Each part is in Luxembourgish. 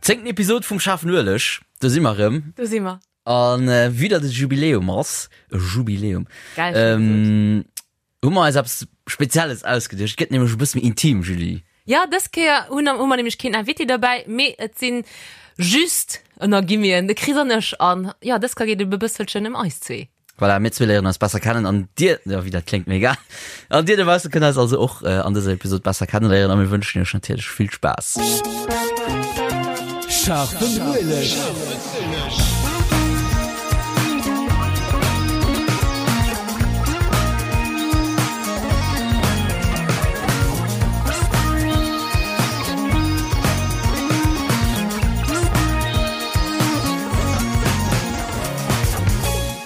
Zéngten Episod vum Schaarfen Ueleg, do si mer erëm. Do si mer. An vue datt et Jubiläum ass, e Jubiläum, Geil, schön gesot. hu mer eis eppes Spezielles ausgeduecht. Et gëtt nämlech e bësse méi intim, Julie. Jo, dës Kéier hunn hu mer nämlech keen Invité derbäi, mee et sinn just, ënner Guillemeten, de Chris an ech. An jo, dës Kéier geet et e bësselchen ëm eis zwee. Voilà, mir zwee léieren eis besser kennen an dir, jo, wéi dat kléngt, mee egal. An dir dobausse kënnt eis also och an dëser Episod besser kenneléieren a mir wënschen iech natierlech vill Spaass. Scharfen Ueleg.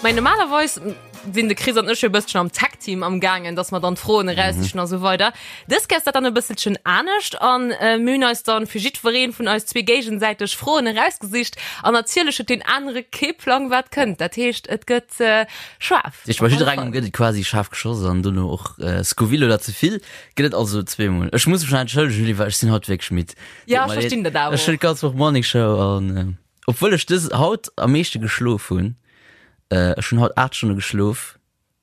Mä normalerweis sinn de Chris an ech jo e bësselchen am Tag-Team am gaangen, dass mer dann d'Froen eraussichen a sou weider. Dës Kéier ass dat dann e bësselchen anescht an mir hunn eis dann fir jiddweree vun eis zwee géigesäiteg Froen erausgesicht an natierlech huet deen anere kee Plang wat kënnt. Dat heescht et gëtt schaarf. Dat heescht bei jidderengem gëtt et quasi schaarf geschoss an dono och Scoville oder ze vill gëtt et also zweemol. Ech muss mech nach entschëllegen Julie, well ech sinn haut wierklech midd. Ja, ech verstinn dat awer och. Ech hunn d'ganz Woch Morning Show an Obwuel ech dës haut am meeschte geschlof hunn, ech hunn haut 8 Stonne geschlof,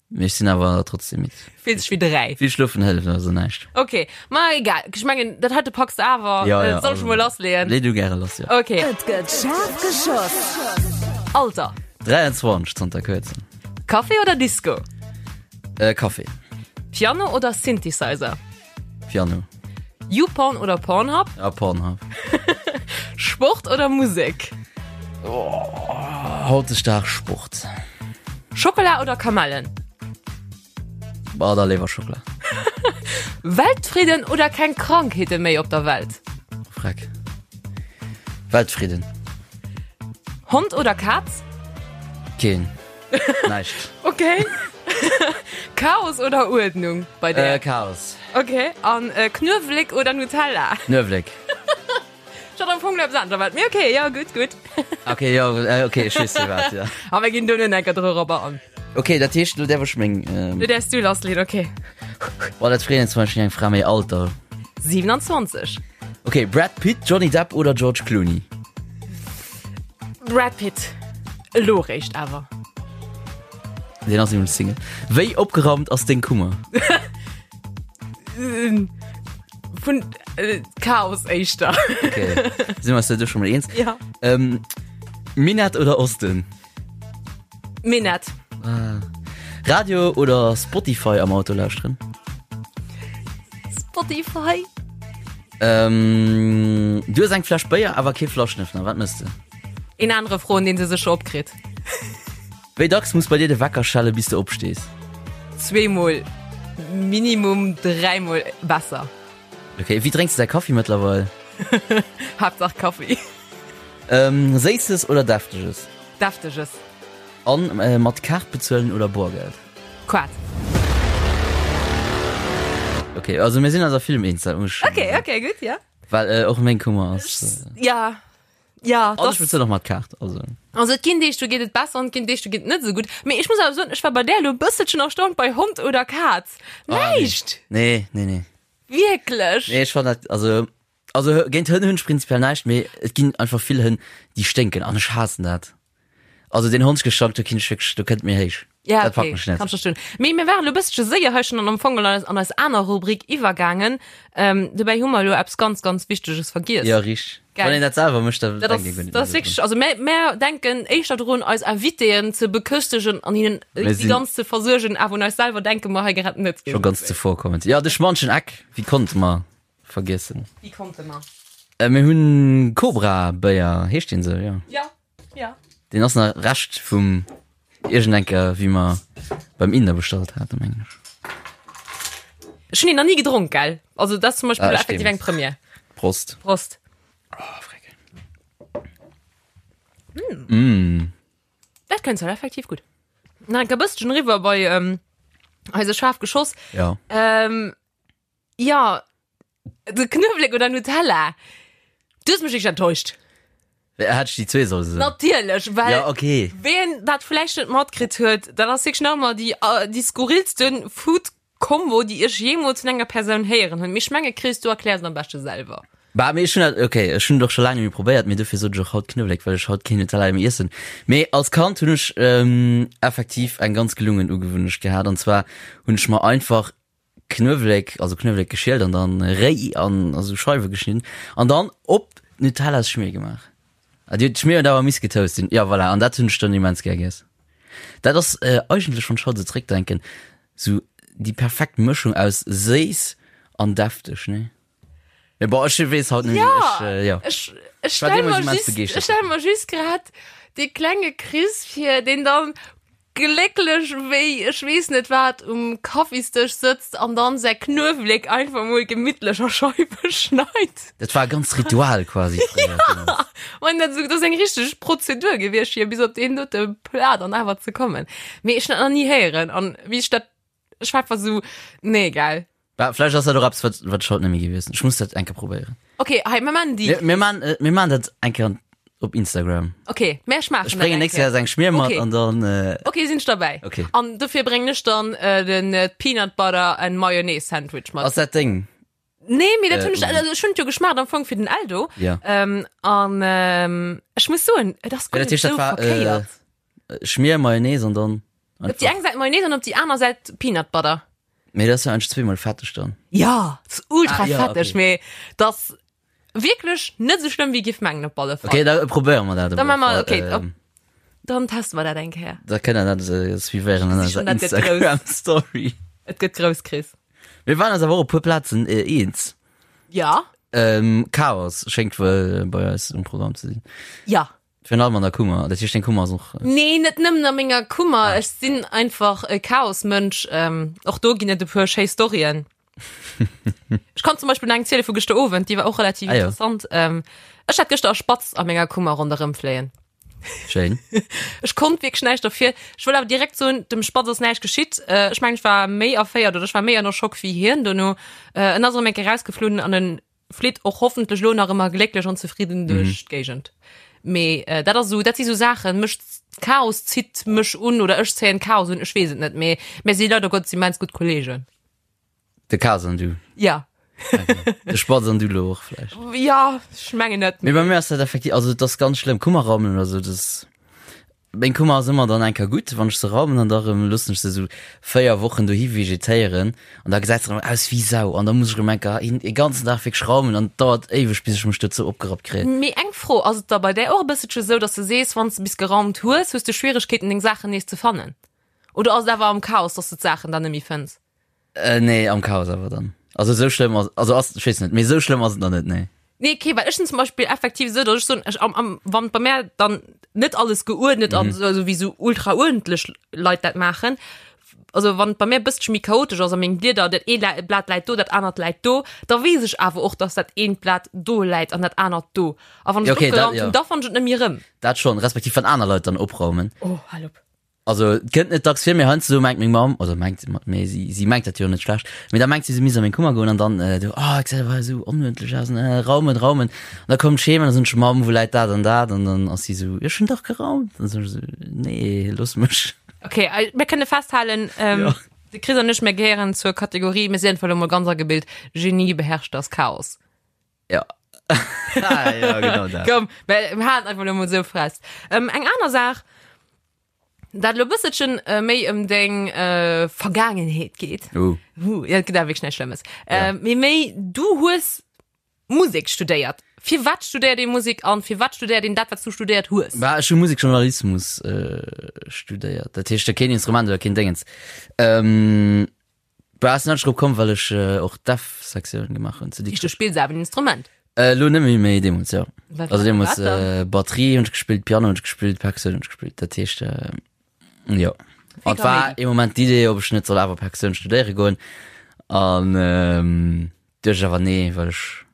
mee ech sinn awer trotzdem midd. Fills dech wéi 3. Vill schlofen hëlleft also näischt. Ok, ma egal, ech mengen dat heite packs de awer, Ja, ja, soll ech mol lassleeën? Lee du gäre lass, jo. Ok. Et gëtt schaarf geschoss. Alter. 23 zanter kuerzem. Café oder Disco? Café. Piano oder Synthesizer? Piano. YouPorn oder Pornhub? Ja, Pornhub. Sport oder Musek? Oh, hautdesdaags Sport. Schockela oder Kamellen? Bah, da léiwer Schockela. Weltfridden oder keng Krankheete méi op der Welt? Freck. Weltfridden. Hond oder Kaz? Keen. Näischt. Okay. Chaos oder Uerdnung bei der? Äh, Chaos. Okay. An äh, Knuewelek oder Nutella? Knuewelek. Ech hat am Fong eppes anescht erwaart. Mee okay, ja, gutt, gutt. Okay, jo, äh, okay, ech weess firwat, ja. A mir ginn do net enker dorobber an. Okay, dat heescht, lo däerf ech meng. Ähm, Lo däerfs du lassleeën, okay. Boah, dat freet een zum Beispill eng Fra méi Alter. 27. Okay, Brad Pitt, Johnny Depp oder George Clooney? Brad Pitt. Elo réischt awer. Deen ass nämlech Single. Wéi opgeraumt ass deng Kummer? Vun äh, Chaos éischter. Okay. Sinn wir uns da schon mal eens? Ja. Ähm, Minett oder Osten? Minett. Ah. Radio oder Spotify am Auto lauschteren? Spotify. Ähm, du hues eng Fläsch Béier, awer kee Flaschenöffner. Wat mëss de? Een anere froen, deen se sécher opkritt. Wéi dacks muss bei dir de Wecker schelle bis de opstees? Zweemol minimum, dräimol besser. Okay, wéi drénks de däi Kaffi mëttlerweil? Haaptsaach Kaffi. Ähm, Séisses oder Defteges? Defteges. An äh, mat Kaart bezuelen oder Boergeld? Kaart. Okay, also mir sinn eis a villem eens, dat muss ech Okay, okay, gutt, ja. Well äh, och meng Kummer ass. Äh, Ja, ja. Also ech bezuelen och mat Kaart, also. Also et ginn Deeg, do geet et besser an et ginn Deeg, do geet et net esou gutt. Mee ech muss awer soen, ech war bei där elo e bësselchen erstaunt bei Hond oder Kaz. Näischt! Nee, nee, nee. Wierklech? Nee, ech fannen dat, also, also géint Hënn hunn ech prinzipiell näischt, mee et ginn einfach vill Hënn, déi sténken an ech haassen dat. Also deen Hondsgestank, do kinn ech wierklech, do kënnt mir héich. Ja, Dat packt okay, mech net. kann ech verstoen. Mee mir waren elo e bësselche séier hei schonn an am Fong an eis, an eis aner Rubrik iwwergaangen. Ähm, dobäi hu mer elo eppes ganz, ganz Wichteges vergiess. Ja, richteg. Gell. Wann een dat selwer mécht, da Dat ass, denkt ee guer net dat ass méi wierklech, also mär, mär denken éischter drun, eis Invitéen ze beköstegen an hinnen Mir déi sinn- ganz ze versuergen, awer un eis selwer denke mer hei grad net. Scho ganz zevorkommend. Ja, de schmanschen Eck, wéi konnte mer vergiessen? Wéi konnte mer? Äh, mir hunn Cobra-Béier, heescht deen esou? Jo. Ja, ja. Deen ass nach Rescht vum iergendenker, wéi mer beim Inder bestallt haten, mengen ech. Ech hunn een nach ni gedronk, gell? Also dat ass zum Beispill Ah, effektiv stimmt. eng Première. Prost. Prost. Oh, freck. Mm. Dat kënnt halt effektiv gutt. Nach enker bësschen riwwer bei ähm, eise schaarf Geschoss. Ja. Ähm, ja, de Knuewelek oder Nutella? Du hues mech wierklech enttäuscht. Hätt ech déi zwee solle soen? Natierlech, well Ja, okay. ween dat vläicht net matkritt huet, dat ass wierklech nach ëmmer déi, déi skurrilste Food Combo, déi ech jeemools vun enger Persoun héieren hunn. Mee ech menge Chris, du erkläers et am beschte selwer. Bah, mee ech hunn dat, okay, ech hunn et och scho laang net méi probéiert, mee dofir sot ech och haut Knuewelek, well ech haut keen Nutella méi iessen. Mee als Kand hunn ech effektiv eng ganz gelungen Ugewunnecht gehat, an zwar hunn ech mer einfach Knuewelek, also Knuewelek geschielt an dann réi an a sou Scheiwe geschnidden an dann op d'Nutellasschmier gemaach. Ah, déi Schmier huet awer miss getoast sinn. Ja, voilà, an dat hunn ech dann immens gär giess. Dat ass eigentlech, wann ech haut esou zréckdenken, sou déi perfekt Mëschung aus séiss an defteg, nee? Mee bon, ech weess haut net méi, Ja, ech, äh, ja. ech, ech War stell deemools mer immens just, begeeschtert ech stell mer just grad dee klenge Chris vir, deen dann glécklech wéi ech weess net wat um Kaffisdësch sëtzt an dann säi Knuewelek einfach mol gemittlech a Scheiwe schneit. Dat war e ganzt Ritual quasi fréier. Ja, man, dat dat ass eng richteg Prozedur gewiescht fir bis op deen dote Plat an awer ze kommen. Mee ech hunn dat nach ni héieren an wéi ech dat Ech war einfach so, nee, geil. Bah, vläicht ass dat och eppes, wat, wat ech haut net méi géif iessen. Ech muss dat eng Kéier probéieren. Okay, hei, mir maachen déi. Mir, mir maachen, äh, mir maachen dat eng Kéier op Instagram. Okay, mä ech maachen Ech bréngen nächst Kéier eng Schmier mat Okay. an dann, äh, Okay, sinn ech derbäi. Okay. An dofir bréngen ech dann äh, den äh, Peanut Butter and Mayonnaise Sandwich mat. ass dat deng? Nee, mee dat Äh, hunn ech, also ech hunn et jo geschmaacht am Fong fir den Eldo. Ja. Ähm, an ähm, ech muss soen, et ass Ja, guer dat net heescht, dat sou war, verkéiert. Äh, Schmier, Mayonnaise an dann Op déi eng Säit Mayonnaise an op déi aner Säit Peanut Butter. Mee dat ass jo eigentlech zweemol fetteg dann. Ja, ass ultra Ah, ja, fetteg, okay. mee dat wierklech net sou schlëmm wéi giff mengen op alle Fall. Okay, da probéiere mer dat. Da maache mer, okay, ähm, op, dann teste mer dat eng Kéier. Da kënnt der dat äh, suivéieren an Ech eiser gesi schon, dat gëtt grouss. Instagram Story. Et gëtt grouss, Chris. Mir waren eis awer och op puer Plazen äh, eens. Ja. Ähm, Chaos schéngt wuel bei eis um Programm ze sinn. Ja. Virun allem an der Kummer. Dat heescht, deng Kummer ass och. Äh, nee, net nëmmen a menger Kummer. Ah. Ech sinn einfach e Chaosmënsch. Ähm, och do ginn et e puer schéi Storyen. Ech kann zum Beispill eng ziele vu gëschter Owend, déi war och relativ Ah, ja. interessant. Ähm, ech hat gëschter e Spatz a menger Kummer ronderëm fléien. Schéin. Ech konnt wierklech näischt derfir. Ech wëll awer direkt soen, dem Spatz ass näischt geschitt. Äh, ech mengen, ech war méi erféiert oder ech war méi ënner Schock wéi hien dono. Äh, en ass erëm eng Kéier rausgeflunn an en flitt och hoffentlech lo nach ëmmer glécklech an zefridden duerch d'Géigend. Mee äh, dat ass sou, dat si sou Saachen, mech Chaos zitt mech un oder ech zéien Chaos un, ech weess et net, mee mir si leider Gottes immens gutt Kollegen. De Chaos an du. Ja. Okay. De Spatz an du lo och vläicht. Ja, ech mengen net. Mee bei mir ass dat effektiv, also dat ass ganz schlëmm, Kummerraumen oder sou, das Meng Kummer ass ëmmer dann eng Kéier gutt, wann ech se raumen an da rëm loossen ech se esou 4 Wochen dohi vegetéieren an da gesäit se rëm aus wéi Sau an da muss ech rëm eng Kéier een e ganzen Dag wierklech raumen an et dauert éiweg bis ech mech dozou opgerappt kréien. Mee eng Fro, ass et da bei där och e bësselche sou, dass de sees, wann s de bis geraumt hues, hues de Schwieregkeeten deng Saachen nees ze fannen? Oder ass et awer am Chaos, dass de d'Saachen dann net méi fënns? Äh, nee, am Chaos awer dann. Also esou schlëmm ass, also ass, ech weess net, mee esou schlëmm ass et nach net, nee. Nee, okay, well ech sinn zum Beispill effektiv esou, datt ech soen, ech am, am, wann bei mär dann net alles geuerdnet mm. ass, also wéi sou ultra uerdentlech Leit dat maachen, also wann bei mär e bësselche méi chaotesch ass a meng Blieder, dat ee Blat läit do, dat anert läit do, da weess ech awer och, datt dat eent Blat do läit an dat anert do. A wann ech Ja, okay, dat, opgeraumt ja. hunn, da fannen ech et net méi erëm. Dat schonn, respektiv wann aner Leit dann opraumen. Oh, hal op. Also et kënnt net dacks vir, mee heiansdo mengt meng Mamm, oder mengt, mee si, si mengt dat jo net schlecht, mee da mengt si, si misst a meng Kummer goen an dann äh, du, oh, et gesäit awer esou onuerdentlech aus, an, äh, raumen, raumen. An da kommt ech heem an da soen ech, Mamm, wou läit dat an dat? An dann ass si esou, ech hunn dach geraumt. An dann soen ech esou, nee, looss mech. Okay, äh, mir kënne festhalen, ähm, Ja. de Chris an ech, mir gehéieren zur Kategorie, mir sinn einfach elo mol ganz agebilt, Genie beherrscht das Chaos. Ja. ah, ja, genau dat. Komm, mir mir halen einfach elo mol esou fest. Ähm, eng aner Saach, dat elo e bësselchen äh, méi ëm deng äh, Vergaangenheet geet. Uh. Uh, ja, et gëtt awer wierklech näischt Schlëmmes. Ja. Äh, mee méi, du hues Musek studéiert. Firwat studéiert ee Musek an firwat studéiert een dat, wat s du studéiert hues? Bah, ech hu Musekjournalismus äh, studéiert. Dat heescht, keen Instrument oder keen Dingens. Ähm, Bah, ass net drop komm, well ech och d'F-Sektioun gemaach hunn zu Dikrech. Du Dikrech. spills awer en Instrument? Äh, lo net méi, mee deemools, jo. Wat, Also deemools wat dann? äh, Batterie hunn ech gespillt, Piano hunn ech gespillt, Perkussioun hunn ech gespillt. Dat heescht, äh, jo. Vill An et war Kaméidi. ee Moment d'Idee, ob ech net soll awer Perkussioun studéiere goen. An ähm, duecht ech awer nee, well ech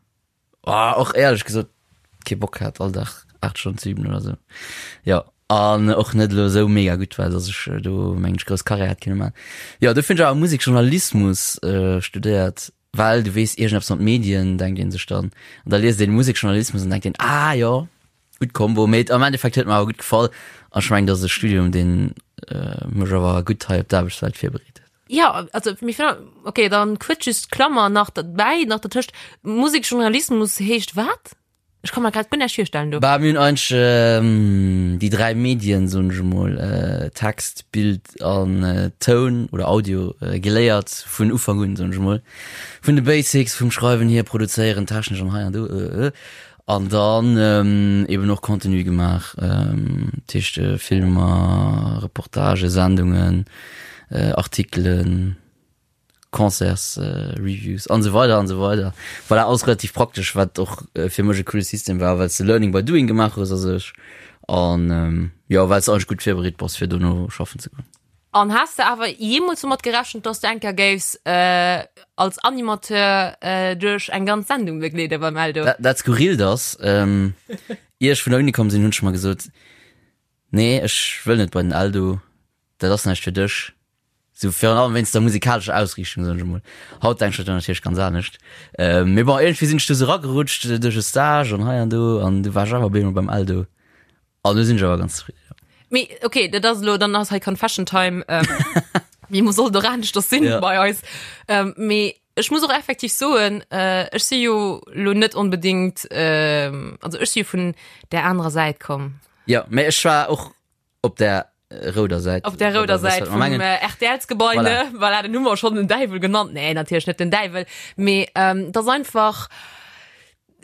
Oh, och éierlech gesot kee Bock hat all Dag 8 Stonnen ze üben oder sou. Jo, an och net elo sou mega gutt war, dass ech do mengen ech grouss Karriär hätt kënne man. Jo, dofir hunn ech awer Musekjournalismus studéiert, well du weess iergendeppes mat Medien denkt een sech dann. An da liest een Musekjournalismus an denkt een, ah jo, gutt Kombo. Mee am Endeffekt huet mer awer gutt gefall an ech mengen, dat ass e Studium, deen mech awer gutt hei op d'Aarbechtswelt virbereet huet. Ja, also mir fin okay, dann kuerz just d'Klammer nach derbäi, nach dertëscht, Musekjournalismus heescht wat? Ech ka mer grad guer näischt virstellen do. Bah, mir hunn eigentlech déi 3 Medien, soen ech emol, Text, Bild an Toun oder Audio geléiert vun Ufank un, soen ech emol. Vun de Basics, vum Schreiwen hier, Produzéieren, technesch an hei an do. An dann eben och Contenu gemaach, dat heescht Filmer, Reportagen, Sendungen, Artikelen. Concerts, Reviews an esou weider an esou weider. Voilà, alles relativ praktesch, wat och fir mech e coole System war, well s de Learning by Doing gemaach hues a sech an jo, well s de eigentlech gutt virbereet bass fir dono schaffen ze goen. An has de awer jeemools domat gerechent, dass de eng Kéier géifs als Animateur duerch eng ganz Sendung begleede beim Eldo? Dat Skurrilt ass, ier ech vun der Uni komm sinn, hunn ech mer gesot, nee, ech wëll net bei den Eldo, dat ass näischt fir dech. Sou virun allem wéinst der musikalescher Ausriichtung, soen ech emol. Haut denken ech dat natierlech ganz anescht. Mee bon, iergendwéi sinn ech du sou eragerutscht duerch e Stage an hei an do an du war ech awer op eemol beim Eldo. An do sinn ech awer ganz zefridden, jo. Mee okay, dat ass elo, dann ass hei Confession Time. Wéi muss sollt och aneschters sinn bei eis. Mee ech muss och effektiv soen, ech si jo elo net onbedéngt, also ech si jo vun där anerer Säit komm. Jo, mee ech war och Op der rouder Säit. Op der rouder Säit vum RTLs-Gebai, ne? Voilà, den hu mer schonn den Däiwel genannt. Nee, natierlech net den Däiwel, mee et ass einfach,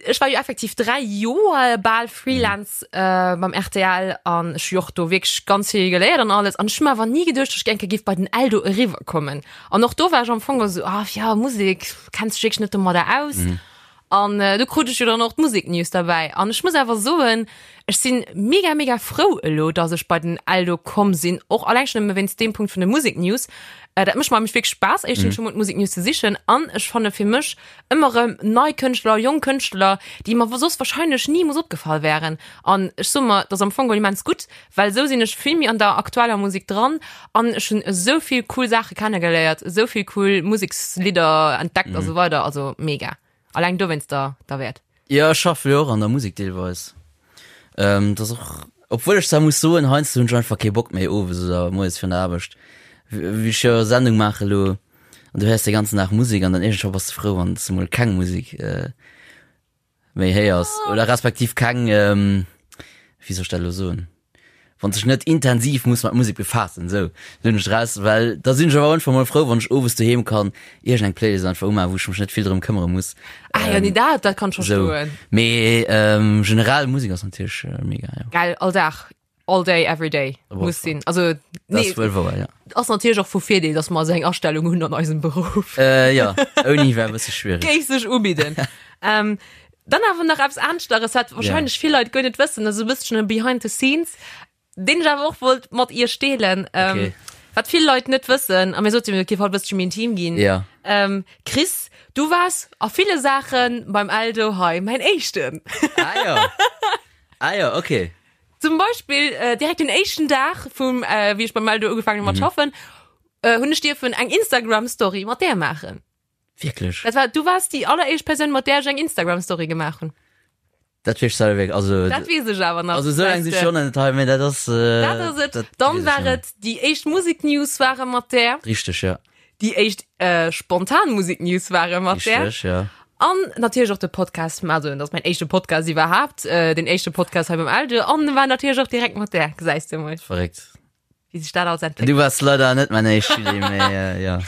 ech war jo effektiv 3 Joer bal Freelance beim rtl an ech hu jo och do wierklech ganz vill geléiert an alles an ech hu mer awer ni geduecht, datt ech eng Kéier géif bei den Eldo eriwwer kommen. An och do war ech am Fong esou, ah jo, Musek, kenns dech wierklech net domadder aus. An do krut ech jo dann och d'Museknews derbäi. An ech muss awer soen, ech si mega, mega frou elo, dass ech bei den Eldo komm sinn, och alleng schonn nëmme wéinst deem Punkt vun de Museknews. Dat mécht mer nämlech wierklech Spaass, éischtens scho mol d'Museknews ze sichen an ech fanne fir mech ëmmer erëm nei Kënschtler, jonk Kënschtler, déi mer soss wahrscheinlech nimools opgefall wären. An ech soe mer, dat ass am Fong geholl immens gutt, well esou sinn ech vill méi an der aktueller Musek dran an ech hunn esou vill cool Saache kennegeléiert, esou vill cool Musekslidder entdeckt a sou weider, also mega. Alleng dowéinster derwäert. Jo, ech schaffe jo och an der Musek deelweis. Dat ass och, obwuel ech zwar muss soen, heiansdo hunn ech einfach kee Bock méi owes oder moies virun der Aarbecht, wéi ech jo Sendung maache elo an du héiers de ganzen Dag Musek an dann iergendwann bass de frou, wann s de mol keng Musek méi héiers oder respektiv keng, wéi soll ech dat elo soen, wann sech net intensiv muss mat Musek befaassen, esou hunn ech draus, well da sinn ech awer einfach mol frou, wann ech owes doheem kann iergend eng Playlist einfach umaachen, wou ech mech net vill drëm këmmere muss. Ah jo, nee, dat, dat kann ech verstoen. Mee generell Musek ass natierlech mega, jo. Gell, all Dag. All day, every day muss sinn. Also, nee, das wuel wouer, ja. Ass natierlech och vu Virdeel, dass mer esou eng Astellung hunn an eisem Beruff. Äh, ja, ouni wär e bësse schwiereg. Géif sech ubidden. ähm, dann awer nach eppes aneschteres, wat wahrscheinlech yeah. vill Leit guer net wëssen, also e bësschen e Behind the Scenes, deen ech awer och wollt mat iech deelen. Ähm, okay. Wat vill Leit net wëssen, a mir soten, et géif haut e bësschen méi intim ginn. Ja. Ähm, Chris, du waars a ville Saache beim Eldo hei mäin Éischten. Ah ja. Ah ja, okay. Zum Beispill äh, direkt den éischten Dag vum äh, wéi ech beim Eldo ugefaangen hu mat mhm. schaffen, äh, hunn ech dierfen eng Instagram Story mat där maachen. Wierklech? Dat war, du wars déi alleréischt Persoun, mat där ech eng Instagram Story gemaach hunn. Dat weess ech wierklech, also Dat weess ech awer nach. Also esou laang si schon net hei, mee dat ass äh, Dat ass et. Dann war et déi éischt Musiknews ware mat där. Richteg, ja. Déi éischt äh, spontan Musiknews ware mat där. Richteg, ja. An natierlech och de Podcast, also dat ass mäin éischte Podcast iwwerhaapt, äh, den éischte Podcast hei beim Eldo, an war natierlech och direkt mat där, gesäis de mol. Verréckt. Wéi sech dat alles entwéckelt. Du wars leider net mäin éischt Julie, mee äh, ja.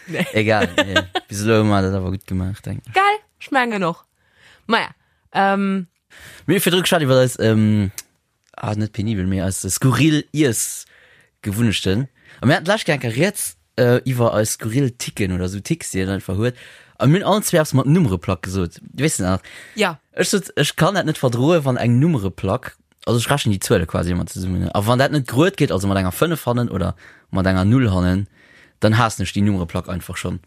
Nee. Egal, nee. Bis elo hu mer dat awer gutt gemaach, denken ech. Gell? Ech mengen och. Maja, ähm. Mir hu virdru geschwat iwwer eis, ähm, ah, net penibel, mee eis skurril Iessgewunnechten. A mir haten d'lescht Kéier eng Kéier rieds äh, iwwer eis skurril Ticken oder sou Ticks, déi een einfach huet. A mir hunn allen zwee eppes mat Nummereplack gesot. Weess de nach? Ja. Ech sot, ech kann dat net verdroen, wann eng Nummereplack, also ech rechnen déi Zuele quasi ëmmer zesummen, a wann dat net grued geet, also mat enger 5 hannen oder mat enger 0 hannen, dann haassen ech déi Nummereplack einfach schonn.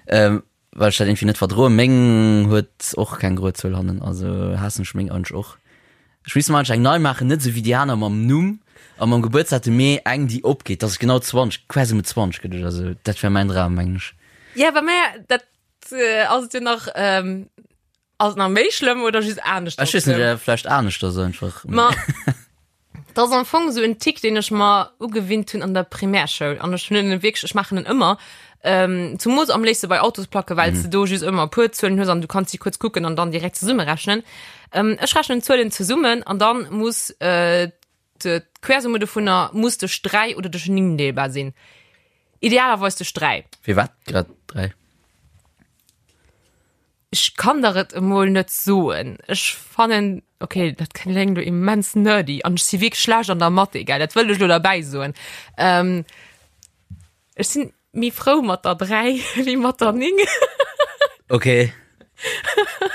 Ähm, Well ech dat irgendwie net verdroen. Meng huet och keng Gruezuel hannen, also haassen ech meng eigentlech och. Ech misst mer eigentlech eng nei maachen, net esou wéi déi aner mam Numm a mam Gebuertsdatum, mee eng déi opgeet, dass et genau 20, quasi mit 20 gëtt oder esou. Dat wär mäin Dram, mengen ech. Ja, bei mär, dat ass et jo nach, ass et nach méi schlëmm oder just aneschters Ech weess net, vläicht aneschters einfach. Ma. Dat ass am Fong esou en Tick, deen ech mer ugewinnt hunn an der Primärschoul. An ech hunn en wierklech, ech maachen en ëmmer. Ähm, zumools am léifste bei Autosplacke, well s de do just ëmmer e puer Zuelen hues an du kanns si kuerz kucken an dann direkt zesummerechnen. Ähm, ech rechnen d'Zuelen zesummen an dann muss äh, d'Quersumme dovunner muss duerch 3 oder duerch 9 deelbar sinn. Idealerweis duerch 3. Firwat grad 3? Ech kann der et emol net soen. Ech fannen, okay, dat kléngt lo immens nerdy an ech si wierklech schlecht an der Mathé, gell, dat wëll ech lo derbäi soen. Ähm, ech sinn méi frou mat der 3 wéi mat der 9. Okay.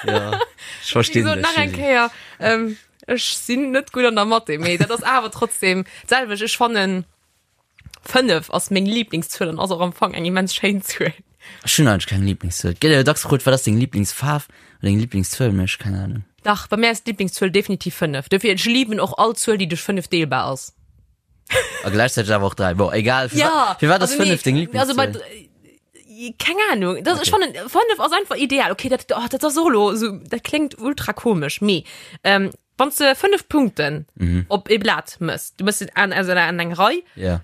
Ja, ech verstinn dech. Nach eng Kéier, ähm, ech sinn net gutt an der Mathé, mee dat ass awer trotzdem d'selwecht. Ech fannen, 5 ass meng Lieblingszuel an ass och am Fong eng immens schéin Zuel. Ech hunn eigentlech keng Lieblingszuel. Et gëtt jo dacks gefrot, wat ass deng Lieblingsfaarf oder deng Lieblingszuel, mee ech keng Ahnung. Dach, bei mir ass d'Lieblingszuel definitiv 5. Dofir, ech liben och all Zuel, déi duerch 5 deelbar ass. A gläichzäiteg awer och 3. Bon, egal. Firwat, Ja, firwat ass also nee, 5 deng also bei Lieblingszuel? Keng Ahnung. Das, Okay. Ech fannen, 5 ass einfach ideal. Okay, dat, oh, dat ass och elo esou, dat kléngt ultra komesch, mee ähm, Wann s de 5 Punkten Mhm. op ee Blat mëss, du mëss se an, also an eng Rei, Ja.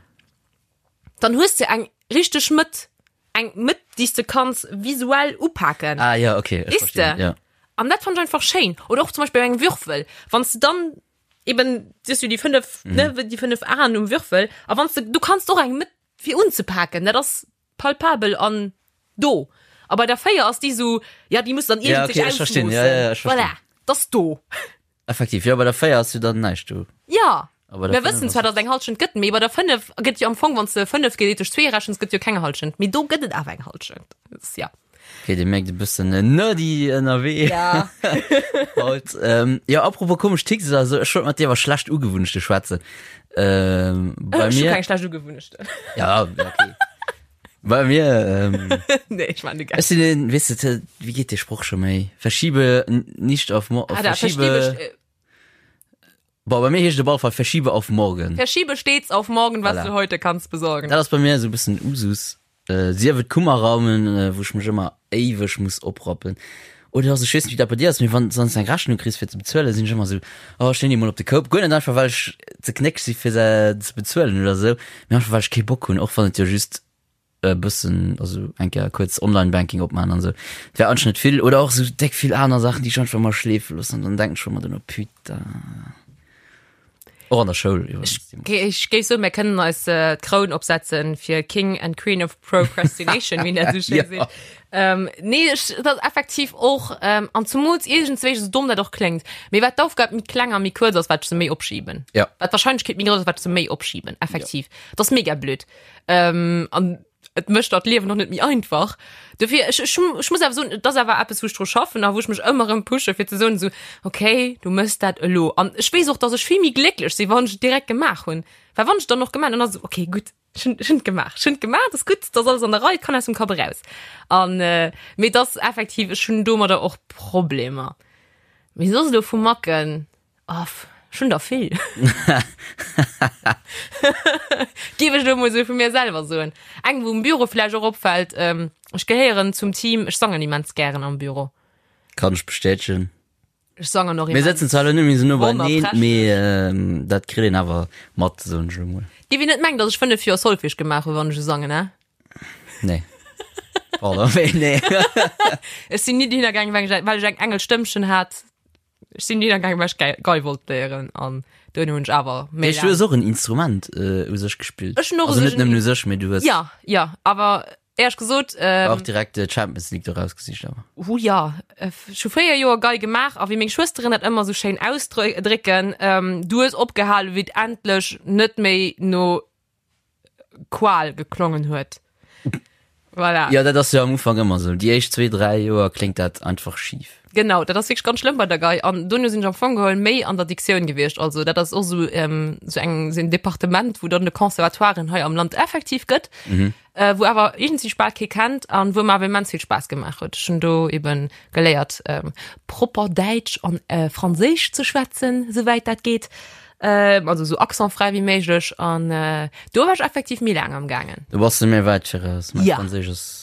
dann hues de eng richteg Mëtt, eng Mëtt, déi s de kanns visuell upaken. Ah ja, okay, ech Weess verstinn. de? Ja. An dat fannt ech einfach schéin. Oder och zum Beispill bei engem Würfel, wann s de dann eben, siehst du déi 5, Mhm. ne, déi 5 Aen um Würfel, a wann s de, du kanns och eng Mëtt fir unzepaken, dat ass palpabel an do. A bei der 4 ass déi sou, ja, déi muss dann Ja, iergendwéi okay, ech verstinn. Ja, ja, ja, ech verstinn. Voilà, dat ass do. Effektiv, jo, bei der 4 ass jo dann näischt do. Ja, A bei der mir 5 wëssen ass zwar, dass et eng Halschent gëtt, mee bei der 5 gëtt jo am Fong, wann s de 5 gedeelt duerch 2 rechens, gëtt jo keng Halschent. Mee do gëtt et awer eng Halschent. Dat ass, ja. Okay, dir mierkt e bëssen nerdy ënnerwee. Ja. Haut. Ähm, ja, apropos komesch Ticks, also ech wollt mat dir iwwer schlecht Ugewunnechte schwätzen. Ähm, bei Ech hu mir. keng schlecht Ugewunnechten. Ja, okay. Bei mir, ähm, Nee, ich meine, ech sinn een, weess de, wéi geet dee Sproch scho méi? Verschiebe nicht auf morgen. Ah, da, Verschiebe. verschiebe, Boah, bei mir heescht et op alle Fall verschiebe auf morgen. verschiebe stets auf morgen, was Voilà. du heute kannst besorgen. Dat ass bei mir esou e bëssen Usus. Äh, sief et Kummerraumen, äh, wou ech mech ëmmer éiweg muss oprappen. Oder also, ech weess net, wéi dat bei dir ass, mee wann s eng Rechnung kriss fir ze bezuelen, sinn ech ëmmer esou, oh, ech leeën déi mol op de Koup. Guer net einfach, well ech ze knéck si fir se ze bezuelen oder esou, mee einfach well ech kee Bock hunn, och wann et jo just e bëssen, also eng Kéier kuerz Online-Banking opmaachen an esou. Et wär anscheinend net vill. Oder och esou déck vill aner Saachen, déi ech einfach ëmmer schleefe loossen an dann denken ech ëmmer duerno, putain. Och an der Schoul iwwregens. Ech géif soen, mir kënnen eis äh, d'Kroun opsetzen fir King and Queen of Procrastination, wéi dat esou schéin Ja. seet. Ähm, nee, ech, dat ass effektiv och, ähm, an zumools iergendzwéi, esou domm dat och kléngt, mee wat d'Aufgab méi kleng a méi kuerz ass, wat ech se méi opschiben. Ja. Wat d'Wahrscheinlechkeet méi grouss ass, wat ech se méi opschiben, effektiv. Dat ass mega blöd. Ähm, an et mécht dat Liewen och net méi einfach. Dofir, ech, ech, ech muss awer soen, et ass awer eppes, wou ech dru schaffen a wou ech mech ëmmer erëm pushe fir ze soen esou, okay, du méchs dat elo. An ech weess och, dass ech vill méi glécklech sinn, wann ech et direkt gemaach hunn. Well wann ech et dann och gemaach hunn, dann ass et esou, okay, gutt, ech hunn, ech hunn et gemaach, ech hunn et gemaach, et ass gutt, et ass alles an der Rei, et kann aus dem Kapp eraus. An, mee et ass effektiv, ech hunn domadder och Problemer. Mee soss elo vu Macken, Aff, ech hunn der vill. Géif ech elo mol esou vu mir selwer soen. Eng, wou um Büro vläicht och opfält, ech gehéieren zum Team, ech sangen immens gären am Büro. Kann ech bestätegen. Ech sangen och Mir immens. sëtzen zwar elo net méi esou no beineen, Wonnerprächteg. mee dat kritt een awer mat, soen ech elo mol. Géif een net mengen, datt ech 5 Joer Solfège gemaach hunn, wann ech esou sangen, he? Nee. Pardon, mee nee. Ech sinn ni dohinner gaangen, well ech well ech eng Engelstëmmchen hat. Ech sinn dohinner gaangen, well ech Gei Gei wollt léieren an duerno hunn ech awer méi Mee du hues laang. och en Instrument äh, u sech gespillt. Ech hunn och u Also sech net en nëmmen u sech, mee du hues Ja, ja, awer éierlech gesot, ähm, och direkt äh, d'Champions League do rausgesicht awer. Hu ja, ech hu fréier Joer Gei gemaach a wéi meng Schwësteren dat ëmmer sou schéin ausdrécken, ähm, du hues opgehalen, wéi et endlech net méi no Qual geklongen huet. Voilà. Ja, dat ass jo am Ufank ëmmer esou. Déi éischt zwee, dräi Joer kléngt dat einfach schif. Genau, dat ass wierklech ganz schlëmm bei der Gei. An dono sinn ech am Fong geholl méi an der Diktioun gewiescht. Also dat ass och esou ähm, sou eng, sou en Departement, wou dann de Conservatoiren hei am Land effektiv gëtt, mhm. äh, wou awer iergendwéi bal kee kennt an wou mer awer immens vill Spaass gemaach huet. Ech hunn do eben geléiert, ähm, propper Däitsch an äh, Franséisch ze schwätzen, souwäit dat geet. Ähm, also so accentfrei wéi méiglech an äh, do war ech effektiv méi laang am gaangen. Du bass de mir wäit viraus. Mein Ja. Franséisch ass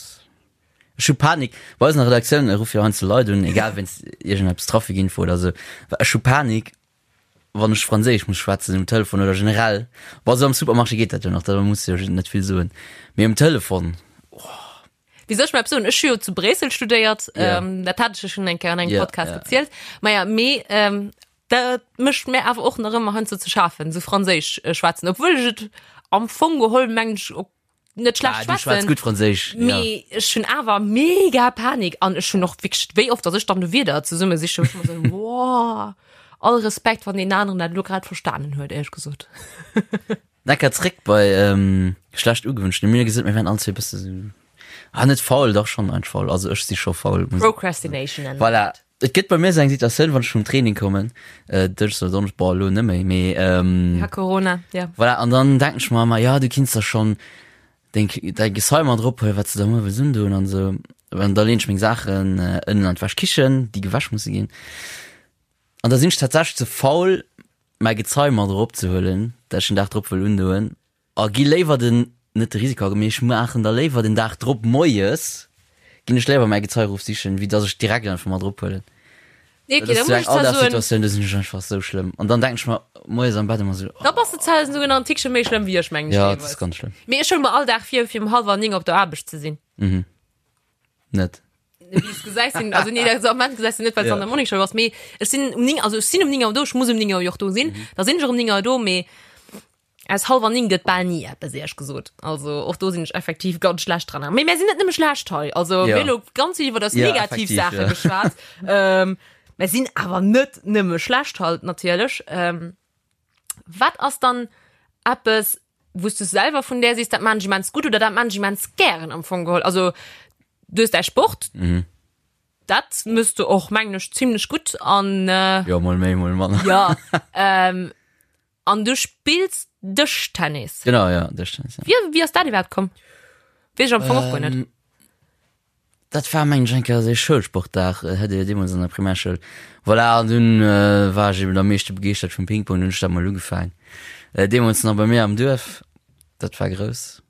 Ech hu Panik. Bei eis an der Redaktioun ruffe jo heiansdo Leit un, egal wéinst iergendeppes Trafikinfo oder sou. Well ech hu Panik. wann ech Franséisch muss schwätzen um Telefon oder generell. Bon, esou am Supermarché geet dat jo nach, da muss de jo net vill soen. Mee um Telefon, Wéi soll ech mer eppes soen? Ech hu jo zu Bréissel studéiert, Ja. ähm, dat hat ech jo schonn eng Kéier an engem Ja, Podcast ja. erzielt. Maja, mee ähm, dat mécht mir awer och nach ëmmer heiansdo ze schafen, esou Franséisch äh, schwätzen, obwuel ech et am Fong geholl mengen ech och net schlecht ah, du schwätz schwätzen. gutt Franséisch. Ja. Mee ech hunn awer mega Panik an ech hunn och wierklech, wéi oft, dass ech dann de Wierder zesumme sichen, wou ech ëmmer sou, wow, all Respekt, wann deen aneren dat elo grad verstanen huet, éierlech gesot. Necker zréck bei ähm, schlecht ugewünscht. Mir gesot, mir wären all zwee bësse sou, ah, net faul, dach schon ein faul. Also ech si scho faul. muss- Procrastination nennen. Voilà. Et gëtt bei mir sou eng Situatioun, wann ech vum Training kommen, äh, Dënschdes oder Donneschdes, boah, elo net méi, mee ähm, Ja, Corona, ja. voilà, an dann denken ech mer ëmmer, ja, du kinns da schon deng, däi Gezei mat erophuelen, wat s de da muer wëlls undoen an sou. An da leen ech meng Saachen äh, ënnen an d'Wäschkichen, déi gewäsch musse ginn. An da sinn ech tatsächlech ze faul, mäi Gezei mat eropzehuelen, dat ech den Dag drop wëll undoen, a gi léiwer den, net de Risiko, mee ech maachen da léiwer den Dag drop moies, ginn ech léiwer mäi Gezei erofsichen, wéi dass ech direkt einfach mat erophuelen. Nee, okay, Dat da ass sou muss eng ech zwar soen, Alldagssituatioun, do sinn ech einfach sou schlëmm. An dann denken ech mer moies am Bett ëmmer sou, da bass de zwar souguer nach en Tickche méi schlëmm wéi ech, mengen ech ja, dat ass deelweis. ganz schlëmm. Mee ech huele mer all Dag vir, fir um hallwer 9 op der Aarbecht ze sinn. Net. Wéi s gesäis sinn, also nee, dat am Moment gesäis du net, well s Ja. an der Morningshow ass, mee ech sinn um 9, also ech sinn um 9 Auer do, ech muss um 9 Auer jo och do sinn, Mhm. da sinn ech och um 9 Auer do, mee aus hallwer 9 gëtt bal ni eppes, éierlech gesot. Also och do sinn ech effektiv ganz schlecht dran. Mee mär sinn net nëmme schlecht hei, also Ja. mir hu lo ganz vill iwwer eis Ja, negativ effektiv, Saache ja. geschwat. Ähm, mär sinn awer net nëmme schlecht halt natierlech. Ähm, wat ass dann eppes, wou s du selwer vun där sees, dat maan ech immens gutt oder dat maan ech immens gären am Fong geholl? Also du hues däi Sport, Mhm. dat mëss du och mengen ech zimlech gutt an äh, Jo, mol méi, mol manner. ja ähm, an du spills Dëschtennis. Genau, ja, Dëschtennis, ja. Wie, wie ass dat iwwerhaapt komm? Weess ech am Fong och guer net. Ähm, Dat war mengen ech eng Kéier esou ee Schoulsportdag, hat Dir jo deemools an der Primärschoul. Voilà, an dunn war ech eben am meeschte begeeschtert vum Ping-Pong, dunn hunn ech dat mol ugefaang. Deemools nach bei mir am Duerf, dat war grouss.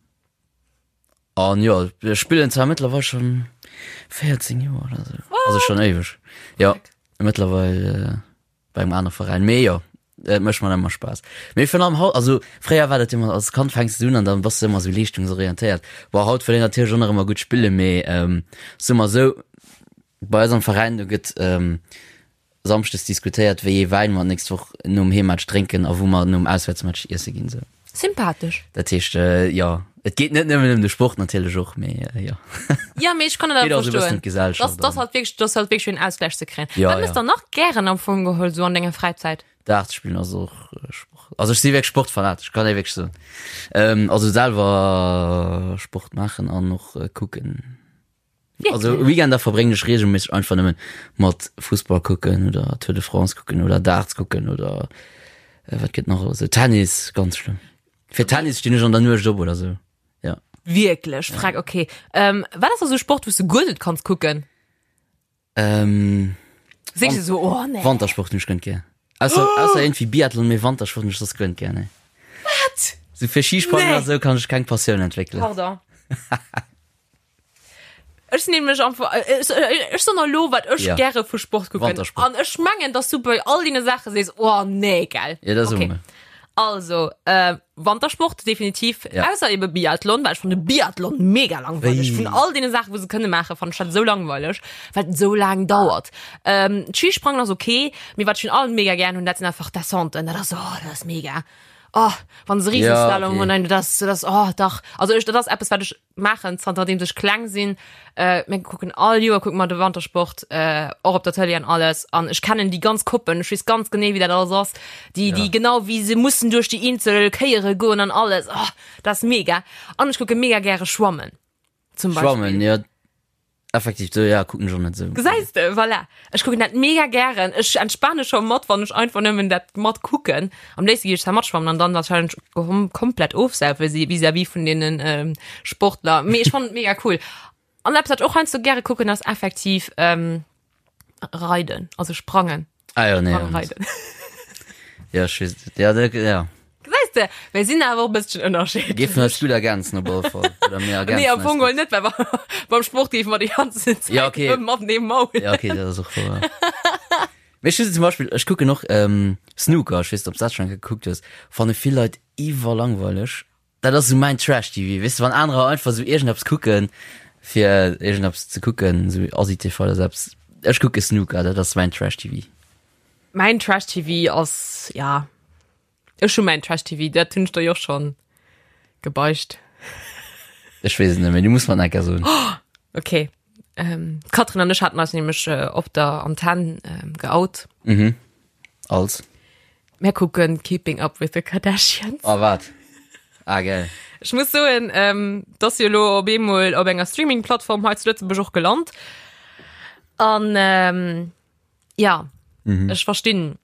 An jo, ech spillen zwar mëttlerweil schonn 14 Joer oder esou, also schonn éiweg. Jo, mëttlerweil. bei engem anere Veräin. Mee jo, et mécht mer ëmmer Spaass. Mee virun allem haut, also fréier war dat ëmmer, als Kand fänks du un an dann bass du ëmmer sou leeschtungsorientéiert. Bon, haut wëll een natierlech och nach ëmmer gutt spillen, mee ähm, soe mer sou, bei eis am Veräin, do gëtt ähm, samschdes diskutéiert, wéi ee Wäin mer d'nächst Woch nom Heemmatch drénken a wou mer nom Auswäertsmatch iesse ginn, sou. Sympathesch. Dat heescht, äh, jo, et geet net nëmmen ëm de Sport natierlech och, mee äh, jo. Ja, mee ech kann dat Geet awer och sou e bëssen verstoen. ëm d'Gesellschaft Das, das an. halt wierklech, das halt wierklech fir en Ausgleich ze kréien. Ja, Wat mëss ja. der nach gären am Fong geholl sou an denger Fräizäit? Dart spillen ass och äh, Sport. Also ech si wierklech sportfanatesch, kann ee wierklech soen. Ähm, also selwer Sport maachen an och äh, kucken. Also Weekender verbréngen ech regelméisseg einfach nëmmen mat Fussball kucken oder Tour de France kucken oder Darts kucken oder äh, wat gëtt nach alles? Tennis, ganz schlëmm. Fir Tennis stinn ech an der Nuecht op oder sou. Ja. Wierklech? Frag, okay. Ähm, wat ass da sou Sport, wou s du guer net kanns kucken? Ähm, Sees du sou, oh nee. Wantersport hunn ech guer net gär. Ausser, oh! ausser irgendwie Biathlon, mee Wantersport hunn ech soss guer net gär, nee. Wat? Sou fir Skisprangen Nee. oder sou kann ech keng Passioun entwéckelen. Pardon. Ech sinn nämlech einfach, äh, ech, äh, ech soen elo, wat ech Ja. gäre vu Sport kucken. Wantersport. An ech mengen, dass du bei all deene Saache sees, oh nee, gell. Ja, dat soe Okay. mer. Also, äh, Wantersport, definitiv. Ja. Ausser ebe Biathlon, well ech fanne Biathlon mega langweileg. Wéi? Vun all deene Saachen, wou se kënne maachen, fannen ech dat esou langweileg, well et esou laang dauert. Ähm, d'Skisprangen ass okay, mee wat ech vun allem mega gären hunn, dat sinn einfach Descenten. Dat ass, oh, dat ass mega. Oh, wann se Riesenslalom Ja, okay. hunn, nein, dat ass, dat ass, oh, dach. Also ech, dat ass eppes, wat ech maachen zanterdeems ech kleng sinn. Äh, mir kucken all Joer kucke mer de Wantersport äh, och op der Tëlee an alles an ech kennen déi ganz Koppen, ech weess ganz genee wéi dat alles ass, déi déi Ja. genau wéi se mussen duerch déi eenzel Kéiere goen an alles. Oh, dat ass mega. An ech kucke mega gäre schwammen zum Beispill. Schwammen, ja. Effektiv, do, ja, kucken ech och net esou. Gesäis de, voilà. Ech kucken dat mega gären. Ech entspane scho mat, wann ech einfach nëmmen dat mat kucken. Am léifste géif ech zwar matschwammen an dann wahrscheinlech kom komplett ofsaufe si vis-à-vis vun deenen ähm, Sportler. Mee ech fannen et mega cool. An eppes, wat ech och heiansdo gäre kucken, ass effektiv ähm, Reiden, also Sprangen. Ah jo, nee. Sprang reiden. Ja, ech weess et. Ja, dat, ja. Gesäis de, mir sinn awer och e bësschen ënnerscheedlech. Géifen eis gutt ergänzen op alle Fall. Oder mir ergänzen Nee, am eis Fong gutt. geholl net, well beim Sport géife mer déi ganzen Zäit Ja, okay. matenee maulen. Ja, okay, dat ass och wouer. Mee ech hu zum Beispill, ech kucken och Snooker, ech weess net, ob s dat schonn eng Kéier gekuckt hues, fanne vill Leit iwwerlangweileg. Dat ass esou mäin Trash-TV, weess de, wann anerer einfach esou iergendeppes kucken, fir iergendeppes ze kucken, esou Asi-TV oder esou eppes, ech kucke Snooker, dat ass mäin Trash-TV. Mäin Trash-TV ass, ja, ech hu mäin Trash-TV, dat hunn ech der jo och schonn gebeicht. Ech weess et net méi, du muss mer et nach eng Kéier soen. Okay. Ähm, d'Catherine an ech haten eis nämlech op der Antenn geout. Mhm. Als? Mär kucken Keeping Up with the Kardashians. Oh wat? Ah geil. Ech muss soen, ähm, dass jo elo op eemol op enger Streaming-Plattform hei zu Lëtzebuerg och gelant. An ähm, ja, mhm. ech verstinn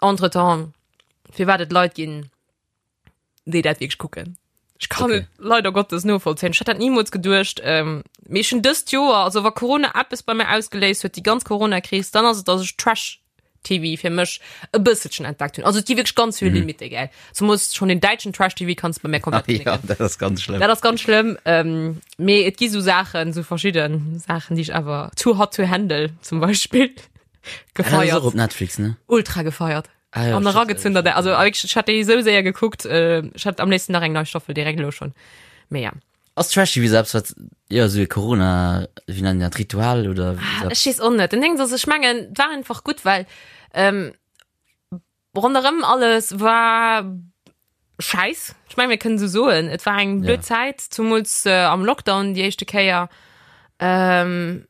entretemps, firwat et Leit ginn, déi dat wierklech kucken. Ech kann okay. et leider Gottes novollzéien. Ech hätt dat niemools geduecht. Ähm, mee ech hunn dëst Joer, also wa Corona eppes bei mir ausgeléist huet, déi ganz Corona-Kris, dann ass et, dass ech Trash TV fir mech e bësselchen entdeckt hunn. Also et gi wierklech ganz vill mhm. Limite, gell. Zumols schon den däitschen Trash TV kannst bei mir komplett ah, ja, dat ass ganz schlëmm. Dat ass ganz schlëmm. Ähm, mee et gi sou Saachen, sou verschidden Saachen, déi ech awer too hot to handle zum Beispill gefeiert. Ah, op Netflix, ne? Ultra gefeiert. Ah, ja, an eragezunn der also ech hat déi sou séier gekuckt äh, ech hat am léifsten nach eng nei Staffel direkt elo schon mee ja. Ass Trash TV selbst wat ja sou e Corona wéi nennen dat Ritual oder ah, ech weess och net den Ding ass ech mengen et war einfach gutt well ähm, ronderëm alles war scheiß ech meng mir kënnen sou soen et war eng blöd ja. Zäit zumools äh, am Lockdown déi éischte Kéier ähm,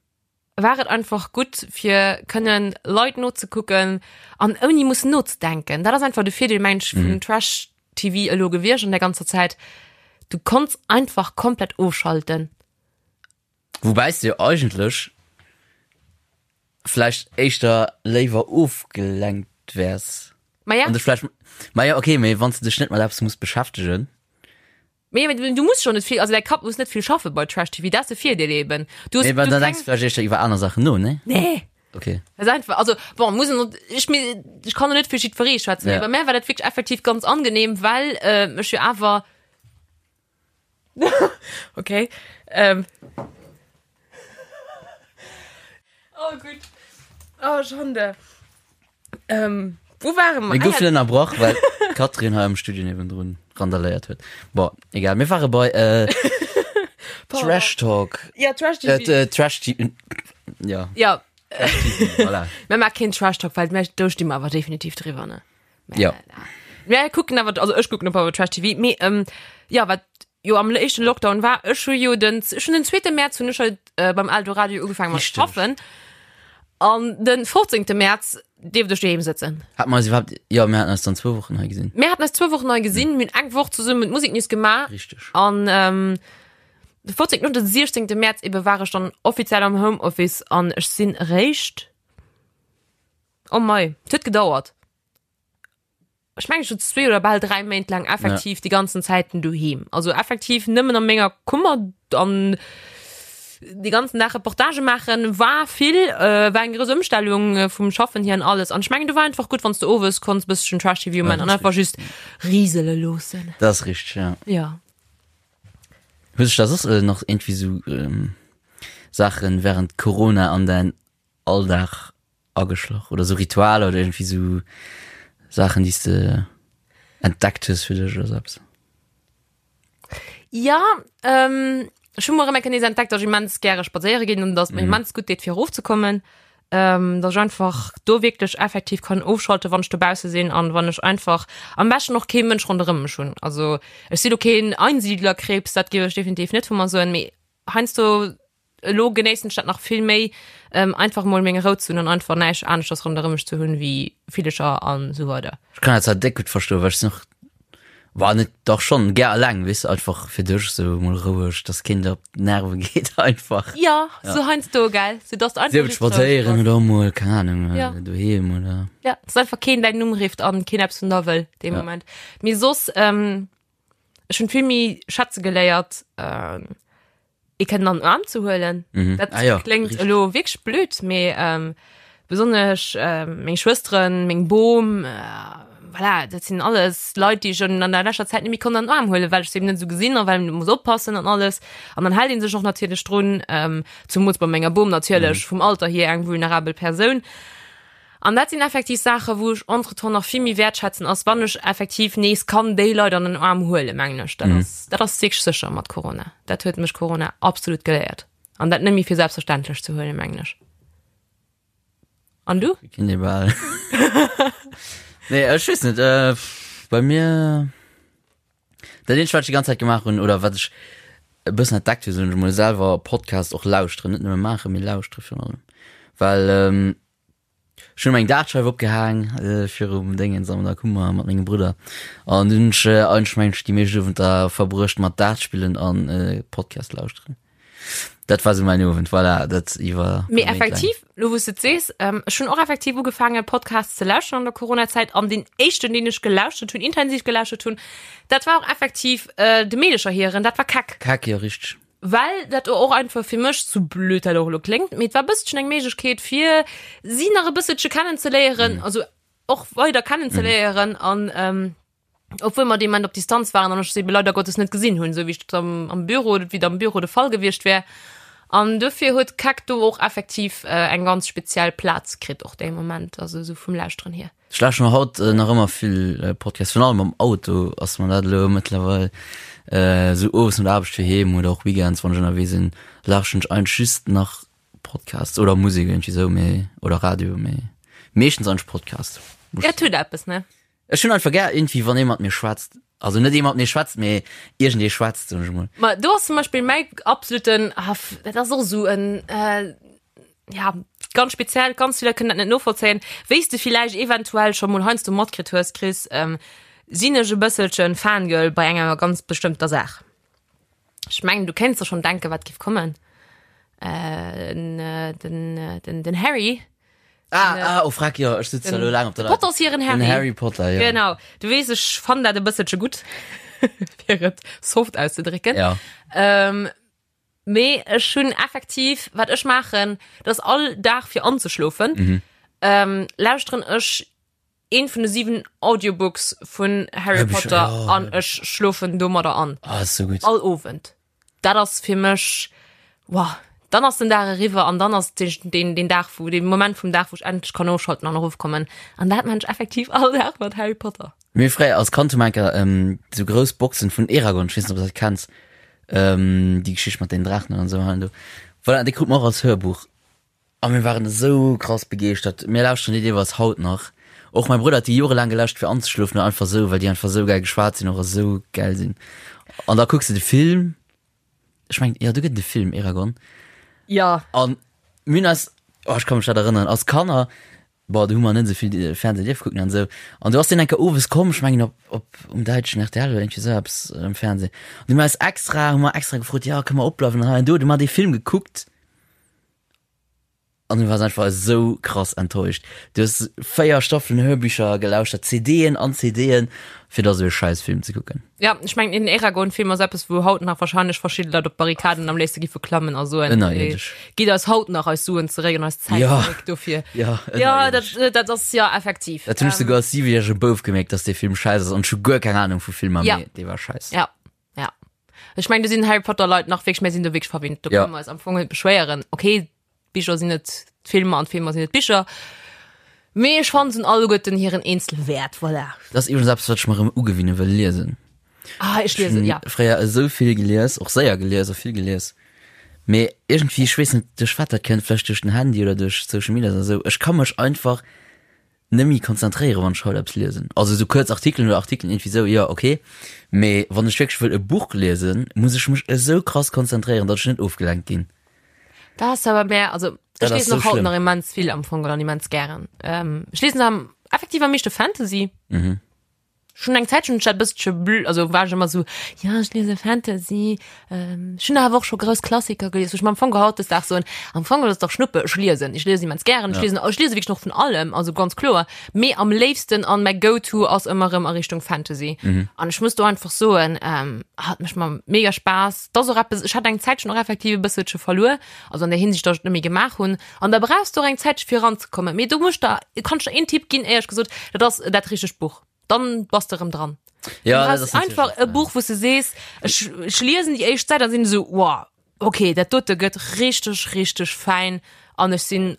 war et einfach gutt fir kënnen Leit nozekucken an ouni mussen nozedenken. Dat ass einfach de Virdeel mengen ech vun Trash TV elo gewiescht an der ganzer Zäit. Du konns einfach komplett ofschalten. Woubäi s de jo eigentlech vläicht éischter léiwer ofgelenkt wäers. Ma ja. An dech vläicht, ma ja okay, mee wann s de dech net mat eppes muss beschäftegen. Mee mee du muss schon net vill, also däi Kapp muss net vill schaffe bei Trash TV, dat ass de Virdeel eben. Du hues, Nee, well du dann denkst keng. du vläicht éischter iwwer aner Saachen no, nee? Nee. Okay. Das ist einfach, also bon, muss en, ech mir, ech kann net fir jiddweree schwätzen, Ja. mee bei mär war dat wierklech effektiv ganz angenehm, well äh, ech jo awer okay ähm. Oh gutt. Oh Schande. Ähm, wou ware mer? Mir goufen ënnerbrach, well d'Catherine hei am Studio niewendrun randaléiert huet. Bon, egal, mir ware bei äh, Trash Talk. Ja, Trash TV. Äh, Trash TV. Ja. Ja. Trash TV, voilà. Mir maache keen Trash Talk, well do sti mer awer definitiv driwwer, ne? Ja. Mir kucken awer, also ech kucken op awer Trash TV, mee ähm, ja, wat jo am éischten Lockdown war, ech hu jo den, ech hunn den zweete Mäerz hunn ech halt äh, beim Eldoradio ugefaangen mat Richteg. schaffen. An den 15. Mäerz dierft ech doheem sëtzen. Hat mer eis iwwerhaapt, jo, mir haten eis dann zwou Wochen hei gesinn. Mir haten eis zwou Wochen hei gesinn, mir hunn eng Woch zesummen d'Musiknews gemaach. Richteg. An ähm, de 14. und den 16. Mäerz ebe war ech dann offiziell am Homeoffice an ech sinn eréischt, oh mei, et huet gedauert. Ech mengen, ech sot zwee oder bal dräi Méint laang effektiv déi ganzen Zäiten doheem. Also effektiv nëmmen a menger Kummer an de ganzen Dag Reportage maachen war vill, äh, war eng grouss Ëmstellung äh, vum Schaffen hier an alles. An ech mengen, du war einfach gutt, wann s du owes konns bësschen Trash-TV man an einfach just risele loossen. Dat ass richteg, ja. Ja. Hues dech da soss äh, nach irgendwie sou ähm, Saachen während Corona an däin Alldag ageschloch oder sou Ritualer oder irgendwie sou Saachen, déi s de entdeckt hues fir dech oder sou eppes? Ja, ähm, ech hu mol erëm eng Kéier nees entdeckt, dass ech immens gäre spadséiere ginn an dass et mir immens gutt deet fir erofzekommen. Ähm, dass ech einfach do wierklech effektiv kann ofschalten, wann ech dobausse sinn an wann ech einfach am beschten och kee Mënsch ronderëm mech hunn. Also ech si lo keen Einsiedlerkrebs, dat géif ech definitiv net vu mer soen, mee heiansdo Elo genéissen ech dat nach vill méi, einfach mol meng Rou ze hunn an einfach näischt aneschters ronderëm mech ze hunn wéi Villecher an esou weider. Ech kann dat zwar déck gutt verstoen, well ech sinn och, bah net, dach schonn gär alleng, weess de, einfach fir dech esou mol roueg, dass keen der op d'Nerve geet einfach. Jo, sou heiansdo, gell, sou dass de einfach Sief et just roueg spadséieren bass. oder och mol, keng Ahnung, Ja. doheem oder. Ja, dass einfach keen däin Numm rifft an keen eppes vun der wëll dee Ja. Moment. Mee soss, ech hunn vill méi schätze geléiert, ee kënnen an den Aarm ze huelen. Mhm. Dat Ah ja, kléngt richtig. elo wierklech blöd, mee ähm, besonnesch ähm, meng Schwësteren, meng Bom, äh, voilà, dat sinn alles Leit, déi ech an an der leschter Zäit net méi konnt an den Aarm huelen, well ech se eben net esou gesinn a well een muss oppassen an alles. An dann hält ee sech och natierlech drun, ähm, zumools bei menger Bom natierlech, vum Alter hier eng vulnerabel Persoun. An dat sinn effektiv Saachen, wou ech entretemps nach vill méi wäertschätzen, ass wann ech effektiv nees kann déi Leit an den Aarm huelen, mengen ech. Dat ass, dat ass wierklech sécher mat Corona. Dat huet mech Corona absolut geléiert. An dat net méi fir selbstverständlech ze huelen, mengen ech. An du? Kinn ee bal. Nee, ech weess net, äh, bei mir. Dat eenzegt, wat ech déi ganz Zäit gemaach hunn, oder wat ech e bëssen entdeckt hunn, soen ech emol, selwer Podcast och lauschteren, net nëmme maachen, mee lauschtere virun allem. Well ähm, ech hunn eng Dartscheif opgehaang äh, virum Déngens an der Kummer mat mengem Brudder. An dunn hunn ech äh, eigentlech mengen ech déi meescht Owenter verbruecht mat Dart spillen an äh, Podcast lauschteren. Dat war sou mäin Owend, voilà, dat iwwer. Mee effektiv, lo wou s de et sees, ähm, ech hunn och effektiv ugefaangen Podcasts ze lauschteren an der Coronazäit an deen éischten, deen ech gelauschtert hunn, intensiv gelauschtert hunn, dat war och effektiv äh, de Meedecher hiren, dat war Keck. Keck, jo, richteg. Well dat och einfach fir mech, sou blöd dat och elo kléngt, mee et war e bësselchen eng Méiglechkeet fir si nach e bësselche kennenzeléieren, also och weider kennenzeléieren an ähm, obwuel mer dee Moment op Distanz waren an ech se ebe leider Gottes net gesinn hunn, esou wéi ech dat am, am Büro, wéi et am Büro de Fall gewiescht wär. An dofir huet Keck do och effektiv äh, eng ganz speziell Plaz kritt, och dee Moment, also esou vum Lauschteren hier. Ech lauschteren haut äh, nach ëmmer vill äh, Podcasts, virun allem am Auto ass mer dat elo mëttlerweil äh, sou owes no der Aarbecht fir heem oder och Weekends, wann ech ënnerwee sinn, lauschteren ech eigentlech just nach Podcasts oder Musek iergendwéi sou, mee oder Radio, mee meeschtens eigentlech Podcast. Ja, et huet eppes, ne? Ech hunn einfach gär iergendwéi wann ee mat mir schwätzt. Also net ee mat mir schwätzt, mee iergendee schwätzt, soen ech emol. Ma do ass zum Beispill mäi absoluten, ah, dat ass och esou en, äh, ja, ganz speziell, ganz vill Leit kënnen dat net novollzéien. Wéi s de villäicht eventuell scho mol heiansdo matkritt hues, Chris, ähm, sinn ech e bësselchen Fangirl bei enger ganz bestëmmter Saach. Ech mengen, du kéints der schonn denken, wat géif kommen. Äh, den, den, den Harry. Ah, ah, oh, frag, jo, ech sitze elo laang op der Leitung. Potters hiren Harry. Den Harry Potter, jo. Genau. Du weess, ech fannen dat e bësselche gutt, fir et soft auszedrécken. Ja. Ähm, mee ech hunn effektiv, wat ech maachen, dat ass all Dag fir anzeschlofen, mhm. ähm, lauschteren ech een vun de 7 Audiobooks vun Harry Potter oh, an ech schlofen domadder an. Ah, ist so gut. All Owend. Dat ass fir mech wow. Dann ass den Dag eriwwer an dann ass den, den, den Dag wo den Moment vum Dag, wou ech endlech kann ofschalten an erofkommen. An dat man ech effektiv all Dag mat Harry Potter. Mir fréier als Kand hu mer enker ähm, sou grouss Boxen vun Eragon, ech weess net, ob du dat kenns, ähm, déi Geschicht mat den Draachen an esou hei an do. Voilà, déi krut mer och als Hörbuch. A mir waren esou krass begeeschtert. Mir lauschteren déi deelweis haut nach. Och mäi Brudder huet déi jorelaang gelauschtert fir anzeschlofen oder einfach esou, well déi einfach esou gäil geschwat sinn och a esou gäil sinn. An da kucks de de Film, ech mengen, jo do gëtt et e Film, Eragon. Ja. An mir hunn eis, oh ech ka mech dat erënneren, als Kanner, bon do hu mer net esou vill Fernseh dierfe kucken an esou, an do ass deen eng Kéier owes komm, ech mengen op, op um däitschen rtl oder iergendwéi esou eppes am Fernseh. An du hu mer eis extra, hu mer extra gefrot, jo kënne mer opbleiwen an hei an do. Du hu mer dee Film gekuckt. An du wars einfach esou krass enttäuscht. Du hues 4 Staffelen Hörbücher gelauschtert, CDen an CDen, fir da sou e scheiß Film ze kucken. Ja, ech mengen den Eragon-Film ass eppes, wou haut nach wahrscheinlech verschidde Leit op d'Barrikaden am léifste giffe klammen a soen, Ënnerierdesch. Gitt eis haut nach eis Suen zeréck an eis Zäit Ja. zeréck dofir. Ja, Ja, dat, ënnerierdesch. dat ass ja effektiv. Dat hunn ech souguer als siwejärege Bouf gemierkt, dass dee Film scheiss ass an ech hu guer keng Ahnung vu Filmer, Ja. mee dee war scheiss. Ja. Ja. Ech mengen, do sinn Harry Potter Leit nach wierklech, mir sinn do wierklech verwinnt. Do Ja. kënne mer eis am Fong net beschwéieren. Okay, d'Bicher sinn net d'Filmer an d'Filmer sinn net d'Bicher. Mee ech fannen, se hunn alleguerten hiren eenzele Wäert. Voilà. Dat ass iwwregens eppes, wat ech mer erëm ugewinne wëll, liesen. Ah, ech liesen, ja. Fréier esou vill gelies, och séier gelies a vill gelies. Mee iergendwéi, ech weess net, duerch wat dat kënnt, vläicht duerch den Handy oder duerch Social Media oder esou, ech ka mech einfach net méi konzentréieren, wann ech haut eppes liesen. Also esou kuerz Artikelen oder Artikelen iergendwéi esou, jo ok. Mee wann ech wierklech wëll e Buch liesen, muss ech mech esou krass konzentréieren, datt ech net ofgelenkt ginn. Dat ass awer mär, also Dat ech ass liesen sou och haut schlëmm. nach immens vill am Fong an immens gären. Ähm, ech liesen am effektiv am meeschte Fantasy. Mhm. Schon eng Zäit schon dat bëssche blö, also war ech ëmmer sou, ja ech liese Fantasy, ähm, ech hunn awer och scho grouss Klassiker gelies, wou ech mer am Fong hautdesdaags soen, am Fong ass et dach Schnuppe, ech liesen, ech liesen immens gären, ech Ja. liesen, ech liese wierklech och vun allem, also ganz kloer, mee am léifsten an mäi Go-to ass ëmmer erëm a Richtung Fantasy. Mhm. An ech muss do einfach soen, ähm, hat mécht mer mega Spaass, 't ass och eppes, ech hat eng Zäitchen och effektiv e bësselche verluer, also an der Hinsicht, datt ech et net méi gemaach hunn, an da brauchs du och eng Zäitche fir eranzekommen, mee do muss ech der, kann ech der een Tipp ginn, éierlech gesot, dat ass dat richtegt Buch, dann bass de erëm dran. Ja, Du dat brauchs ass natierlech einfach e Buch, wou s de sees, ech, ech liesen déi éischt Säit an sinn esou, wow, okay, dat dote gëtt richteg, richteg fäin an ech sinn.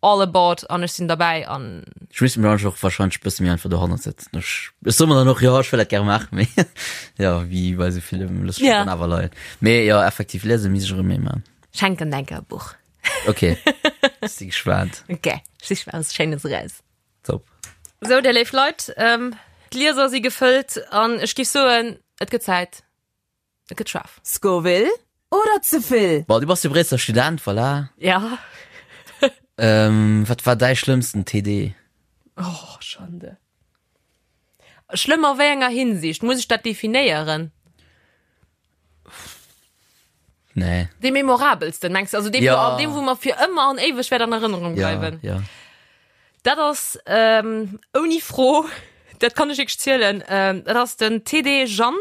All aboard an ech sinn derbäi an. Ech misst mech och wahrscheinlech e bësse méi einfach dohannert setzen. Ech, ech soe mer dann och, jo, ech wëll dat gäre maachen, mee jo, wéi bei esou villem, looss ech mech dann awer leien. Mee jo, effektiv, liese misst ech erëm méi maachen. Schenken denke e Buch. Ok, ech si gespaant. Ok, ech sich mer eppes Schéines eraus. Top. Sou, dir léif Leit, d'Glieser si gefëllt an ech giff soen, et gëtt Zäit. Et gëtt schaarf. Scoville oder ze vill? Bon, du bass jo Bréisseler Student, voilà. Ja. Ähm, wat war däi schlëmmsten TD? Oh, Schande. Schlëmm a wéi enger Hinsicht? Muss ech dat definéieren? Nee. Dee memorabelsten, mengs du? Also dee, Ja. wou, dee, wou mer fir ëmmer an éiweg wäert an Erënnerung Ja, bleiwen. ja. Dat ass ähm, ouni Fro, dat kann ech wierklech zielen, ähm, dat ass den TD Jeanne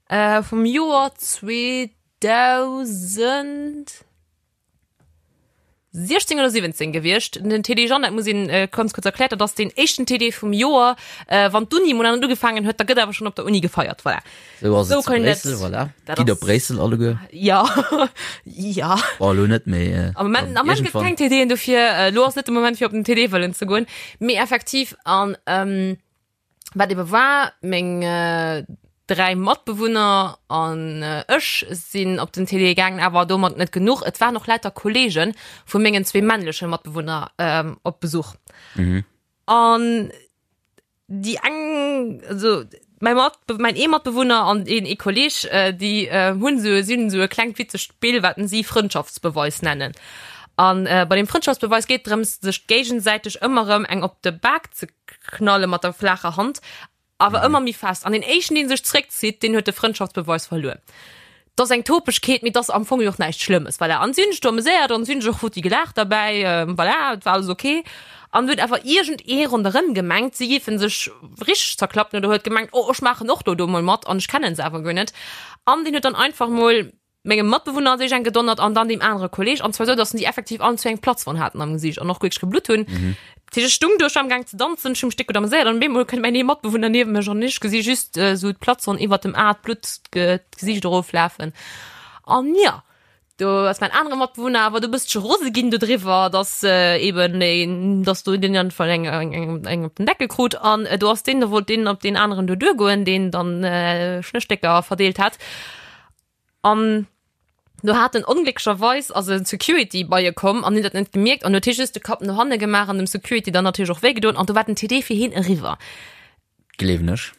äh, vum Joer 2016 oder 17 gewiescht. Den TD Jeanne, dat muss een äh, ganz kurz erklären, dat ass den éischten TD vum Joer. Äh, wann d'Uni mol an ugefaangen huet, da gëtt awer schon op der Uni gefeiert. Voilà. Sou ass Sou et zu kann dat- Bréissel, voilà. dat Gitt op ass- Bréissel alleguer. Ja, ja. Bon, elo net méi. Äh, Am Moment, am Moment gëtt keng TDen dofir. Äh, lo ass net de Moment fir op den TD wëllen ze goen. Mee effektiv an ähm, wat ebe war, meng äh, dräi Matbewunner an äh, ech sinn op den TD gaangen, awer domat net genuch. Et waren och lauter Kollege vu mengen zwee männleche Matbewunner ähm, op Besuch. Mhm. An déi eng, also mäi Mat, mäin ee Matbewunner an een ee Kolleg, déi hunn esou, si hunn esou e klengt witzegt Spill, wat si Frëndschaftsbeweis nennen. An bei deem Frëndschaftsbeweis geet et drëms, sech géigesäiteg ëmmer erëm eng op de Bak ze knalle mat der flaacher Hand, awer ëmmer méi fest. An deen éischten, dee sech zréckzitt, deen huet de Frëndschaftsbeweis verluer. 't ass eng Topegkeet, mee 't ass am Fong jo och näischt Schlëmmes, voilà. An si hunn sech do ameséiert an si hunn sech och futti gelaacht derbäi, voilà, et war alles ok. An huet awer iergend ee ronderëm gemengt, si géife sech richteg zerklappen oder huet gemengt, oh, ech maachen och do do mol mat an ech kennen se awer guer net. An deen huet dann einfach mol mengem Matbewunner an sech eng gedonnert an dann deem anere Kolleg, an zwar esou, datt si effektiv allen zwee eng Platzwonn haten am Gesiicht an och wierklech geblutt hunn. Dat heescht, ech stung do, ech war am Gaang ze danzen, ech hu mech déck gutt ameséiert an op eemol kënnt mäin ee Matbewunner niewent mech an ech gesi just esou d'Platzwonn iwwert dem A, d'Blutt d'Gesiicht eroflafen. An jo, do ass mäin anere Matbewunner awer do e bëssche rose ginn dodriwwer, dass eben een, dass do deen einfach eng, eng, eng, eng op den Deckel krut an do ass deen, do wollt deen op deen aneren do duergoen, deen dann Schnësstécker verdeelt hat. An do hat en onglécklecherweis ass e Security bei e komm an huet dat net gemierkt an huet hie just de Kapp no hanne gemaach an dem Security dann natierlech och wéi gedoen an do war den TD fir hien eriwwer. Gleewen ech.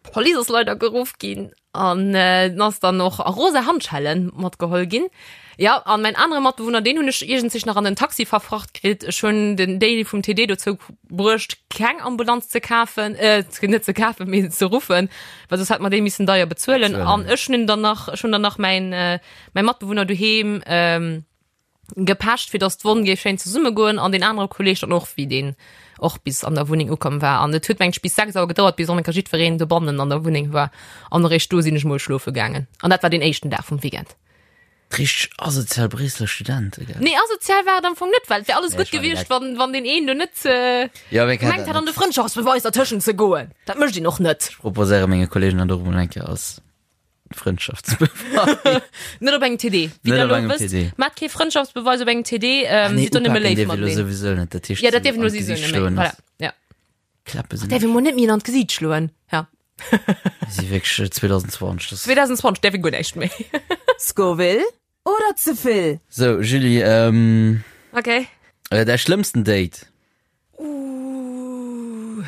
D'Police ass leider geruff ginn an en ass dann och a rosa Handschellen matgeholl ginn. Jo, an mäin anere Matbewunner, deen hunn ech iergendzich nach an den Taxi verfracht kritt. Ech hunn den Daily vum TD dozou bruecht, keng Ambulanz ze kafen, äh, net ze kafen, mee ze ruffen, well soss hätt mer déi missen deier bezuelen. An ech hunn dann nach, ech hunn dann nach mäin, äh, mäi Matbewunner doheem ähm, gepecht, fir dass d'Wonn géif schéin zesummegoen an deen anere Kolleg dann och, wéi deen och bis an der Wunneng ukomm war. An et huet mengt ech bis 6 Auer gedauert, bis onenker jiddwereen dobannen an der Wunneng war. An eréischt do sinn ech mol schlofe gaangen. An dat war deen éischten Dag vum Weekend. Richteg asozial Bréisseler Studente, gell? Nee, asozial war et am Fong net, well et wär alles Nee, gutt ech war gewiescht, direkt- wann, wann deen een do net äh, Ja, wee kennt gemengt dat hätt, an de net? Frëndschaftsbeweis dertëschent ze goen. Dat mécht een och net. Ech proposéiere menge Kollegen dat och emol eng Kéier als Frëndschaftsbeweis. Net op engem TD. Wéi Net der op elo engem wësst, TD. maacht kee Frëndschaftsbeweis op engem TD, ähm, Ah, nee, sidd do nëmme upaken léif dierf ee lo mateneen. souwisou net, dat heescht Ja, dat dierf een an lo souwisou d'Gesicht net méi. schloen Voilà, ass- ja. Klappe sinn Däerf ee mol net méi an d'Gesiit schloen. Ja. si wierklech 2020. Das 2020 däerf ee guer näischt méi. Scoville oder ze vill? So, Julie, ähm, Okay. äh, däi schlëmmsten Date? Uh.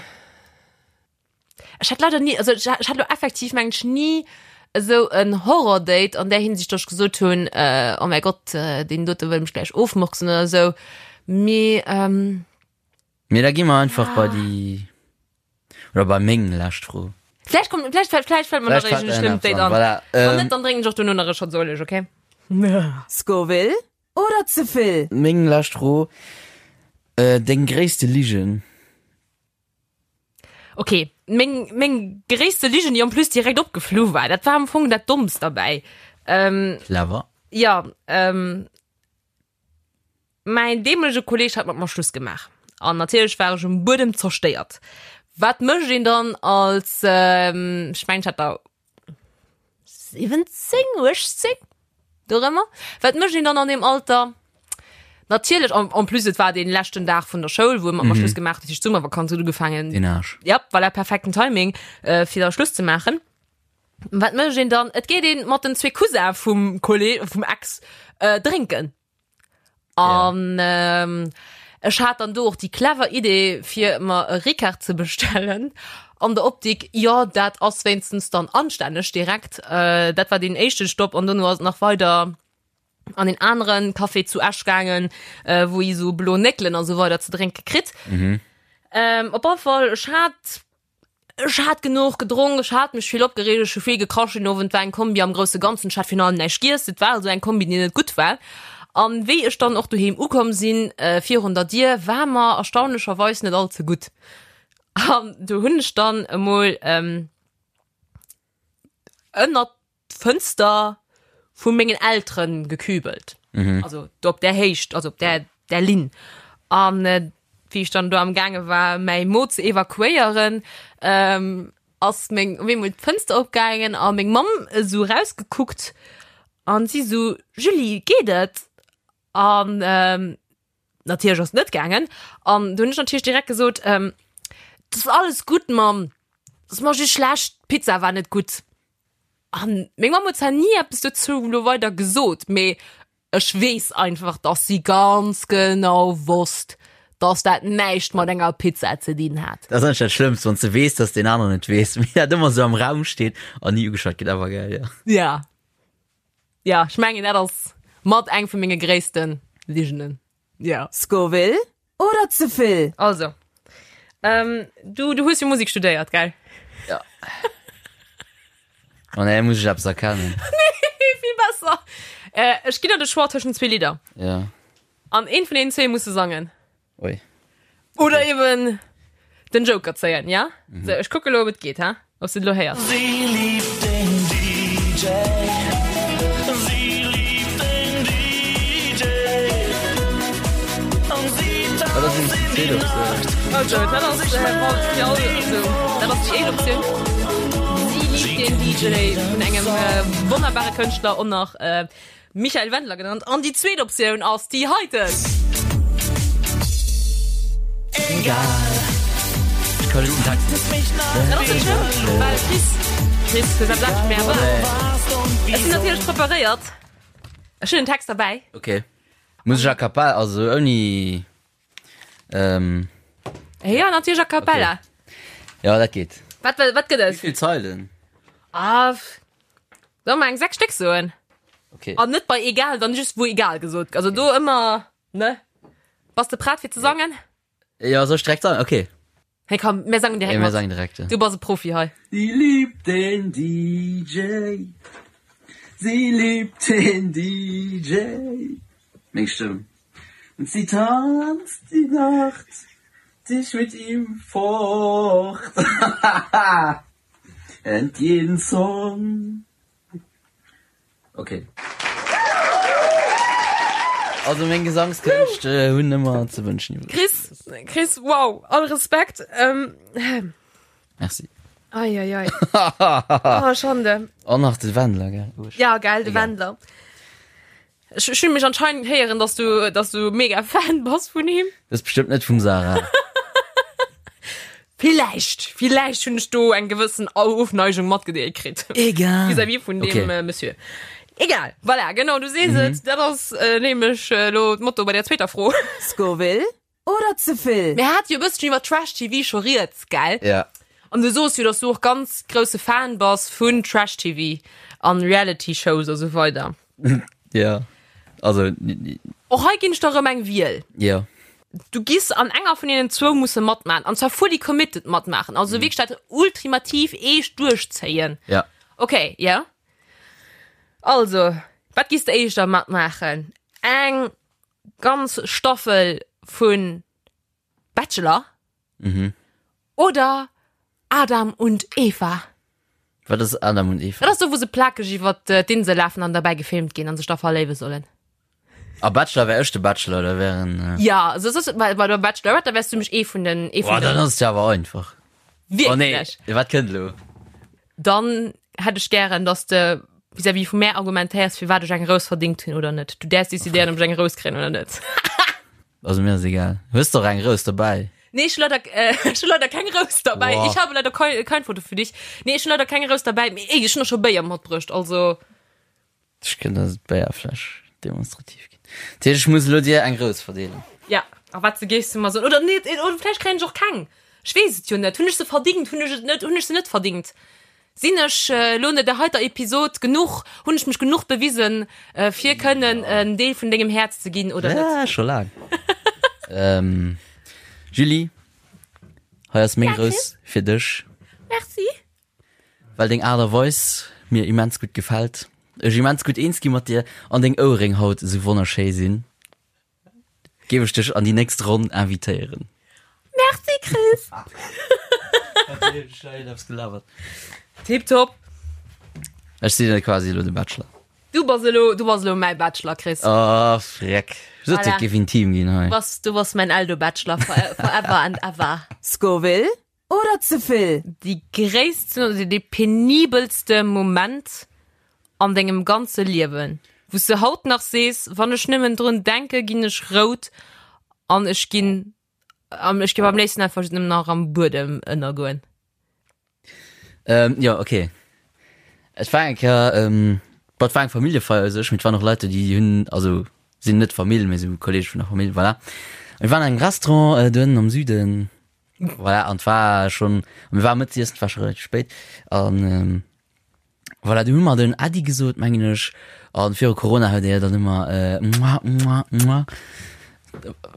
Ech hat leider nie, also ech, ech hat lo effektiv mengen ech nie esou en Horror-Date an där Hinsicht, dass ech gesot hunn, äh, oh mäi Gott, äh, deen dote wëll mech gläich ofmurksen oder esou. Mee, ähm, Mee da gi mer einfach bei déi, oder bei meng lescht Fro. Vläicht kommt, vläicht, vläicht fällt mer nach Vläicht fällt iergend e der schlëmmt nach Date an, an. voilà, Wann ähm. net, dann drénken ech och dono nach e Shot Ueleg, okay? Scoville oder ze vill? Meng lescht Fro, äh, deng gréisste Ligen? Okay, meng, meng gréisste Ligen, déi en plus direkt opgeflu war, dat war am Fong dat Dommst derbäi. Ähm, Clever. ja, ähm, Mäin deemolege Kolleg hat mat mer Schluss gemaach an natierlech war ech um Buedem zerstéiert. Wat mécht een dann als, ech mengen ech hat da 17, 18, dorëmmer. Wat mécht een dann an deem Alter? Natierlech, en, en plus et war dee leschten Dag vun der Schoul, wou mer mm -hmm. Schluss gemaach, dat heescht d'Summervakanz huet ugefaangen. Den Arsch. Ja, voilà, perfekten Timing, äh, fir da Schluss ze maachen. Wat mécht een dann? Et geet een mat den zwee Cousin vum Kolleg, vum Ex, äh, drénken. An ja. ähm, ech hat dann do och déi clever Idee, fir mer e Ricard ze bestellen. An der Optik, jo, dat ass wéinstens dann anstänneg direkt. Äh, dat war deen éischte Stopp an dono ass et nach weider an een aneren Café zu Esch gaangen, äh, wou ee sou blo Néckelen a sou weider ze drénke kritt. Mhm. Ähm, op alle Fall, ech hat Ech hat genuch gedronk, ech hat mech vill opgereegt, ech hu vill gekrasch den Owend, war eng Kombi am grousse Ganzen, ech hat virun allem näischt giess, et war also eng Kombi, déi net gutt war. An wéi ech dann och doheem ukomm sinn, virun der Dier, war mer erstaunlecherweis net all ze gutt. An do hunn ech dann emol ënnert d'Fënster vu mengen Elteren gekübelt. Mhm. Also do op där Héicht, also op där, där Linn. An äh, wéi ech dann do am gaange war, mäi Mo ze evakuéieren, ähm, ass meng, op eemol d'Fënster opgaangen a meng Mamm esou rausgekuckt an si sou, Julie, geet et? An ähm, natierlech ass et net gaangen. An du hunn ech natierlech direkt gesot, ähm, das ass alles gutt, Mamm, das ass mer just schlecht, d'Pizza war net gutt. An meng Mamm huet zwar ni eppes dozou lo weider gesot, mee ech weess einfach, dass si ganz genau wosst, dass dat näischt mat enger Pizza ze dinn hat. Dat ass eigentlech dat Schlëmmst, wann s de weess, dass deen aneren et weess, mee dat ëmmer esou am Raum steet an ni ugeschwat gëtt. Awer geil, jo. Ja. Ja, ech mengen, dat ass mat eng vu menge gréisste Ligenen. Ja. Scoville oder ze vill? Also, ähm, du, du hues jo Musik studéiert, gell? Ja. Oh nee, muss ech eppes erkennen. Nee, vill besser. Äh, ech ginn der de Choix tëschent zwee Lidder. Ja. An eent vun deenen zwee muss de sangen. Ui. Oder eben den Joker zéien, ja? Mhm. So, ech kucke lo, ob et geet, ha? Ob du lo héiers. Sie liebt den DJ. Sie liebt den DJ. Und sie tanzt in die Nacht. Also, dat ass, äh, fir all, also, dat ass déi éischt Optioun. Sie liebt den DJ vun engem äh, wonnerbare Kënschtler och nach äh, Michael Wendler genannt. An déi zweet Optioun ass déi heiten. Egal. Ech kann den Text net. Dat ass net schlëmm, well Chris, Chris, hues eppes anescht méi erwaart. Ech sinn natierlech preparéiert. Ech hunn den Text derbäi. Okay. Muss ech a cappella, also ouni, ähm. Ja, natierlech a cappella. Okay. Ja, dat geet. Wat, wat gëtt et? Wéi vill Zeilen? Ah, Soll mer eng 6 Stéck soen? Okay. An net bei egal, dann just wou egal gesot. Also do ëmmer, ne? Bass de prett fir ze sangen? Ja, soll ech direkt sangen? Okay. Hey komm, mir sangen direkt Ja, mir mat. sangen direkt, ja. Du bass e Profi hei. Sie liebt den DJ. Sie liebt den DJ. Meng Stëmm. Und sie tanzt die Nacht dich mit ihm fort. And jeden Song. Ok. Also meng Gesangskënscht hunn ëmmer ze wënschen iwwreg. Chris, Chris, wow, all Respekt. Ähm, Merci. Ei, ei, ei. Oh, Schande. An nach de Wendler, gell? Uesch. Ja, geil, de Egal. Wendler. Ech, ech hunn mech anscheinend héieren, dass du, dass du mega Fan bass vun him. Das ist bestimmt net vum Sarah. Villäicht, villäicht hunn ech do eng gewëssen Ofneigung matgedeelt kritt. Egal. Vis-à-vis vun deem Okay. äh, Monsieur. Egal, voilà, genau, du sees et. Dat ass äh, nämlech äh, lo d'Motto bei der zweeter Fro. Scoville Oder ze vill? Mir hate jo e bësschen iwwer Trash-TV scho rieds, gell? Ja. An du soos jo, dass du och ganz grousse Fan bass vun Trash-TV an Reality-Shows a sou weider. Ja. Also, Och hei ginn ech der erëm eng Wiel. ja. Du giss an enger vun deenen zwou musse matmaachen, an zwar fully committed matmaachen, also wierklech dat ultimativ eescht duerchzéien. Ja. Okay, ja. Also, wat giss de éischter matmaachen? Eng ganz Staffel vun Bachelor mhm. oder Adam und Eva. Wat ass Adam und Eva? Dat ass do wou se plakeg iwwer äh, d'Insel lafen an derbäi gefilmt ginn an sech da verléiwe sollen. A Bachelor wär ech de Bachelor, da wären äh... Ja, also das ist, bei, bei der Bachelorette, da wärst du mech ee vun den ee vun Boah, dann den ass et ja awer einfach. Oh nee, Wierklech. wat kënnt elo? Dann hätt ech gären, dass de vis-à-vis vu mär argumentéiers, firwat ech eng Rous verdingt hunn oder net. Du däerfs decidéieren, ob ech eng Rous kréien oder net. Also mir ass egal. Hues de och eng Rous dobäi? Nee, ech hu leider, äh, ech hu leider keng Rous dabei. Boah. Ich habe leider kein, kein Foto für dich. Nee, ech hu leider keng Rous dabei. Mee ey, ech hunn och scho Béier matbruecht, also. Ech kënnt der d'Béierfläsch demonstrativ ginn. Dat heescht, ech muss elo dir eng Rous verdeelen. Ja, a wat se géifs du mer soen? Oder net, oder vläicht kréien ech och keng. Ech weess et jo net. Hunn ech se verdingt? Hunn ech et net, hunn ech se net verdingt? Sinn ech elo no der heiter Episod genuch, hunn ech mech genuch bewisen, fir kënnen en Deel vun dengem Häerz ze ginn oder net? Ja, scho laang. ähm, Julie, hei ass meng Rous fir dech. Merci. Well deng Aart a Weis mir immens gutt gefält, ech immens gutt eens gi mat dir an deng Ouerréng haut esou wonnerschéi sinn. Géif ech dech an déi nächst Ronn invitéieren. Merci Chris. Tiptop. Ech sinn quasi elo de Bachelor. Du bass elo, du bass elo mäi Bachelor, Chris. Oh, freck. Sot Voilà. et géif intim ginn hei. Du bass, du bass mäin Eldo-Bachelor forever and ever. Scoville Oder ze vill? Déi gréissten oder dee penibelste Moment an dengem ganze Liewen, wou s de haut nach sees, wann ech nëmmen drun denke ginn ech rout an ech ginn, ech géif am léifsten einfach nëmmen nach am Buedem ënnergoen. Ähm, jo, okay. Et war eng Kéier, ähm, bon, et war eng Familljefeier u sech, mee et waren och Leit do, déi hunn, also sinn net Famill, mee sou Kolleege vun der Famill, voilà. A mir waren an engem Restaurant do ënnen am Süden, Voilà, an war schon mir war Mëttesiessen, war schon relativ spéit an ähm, voilà, du hu mer den Äddi gesot mengen ech an viru Corona huet er dann ëmmer äh, mua, mua, mua.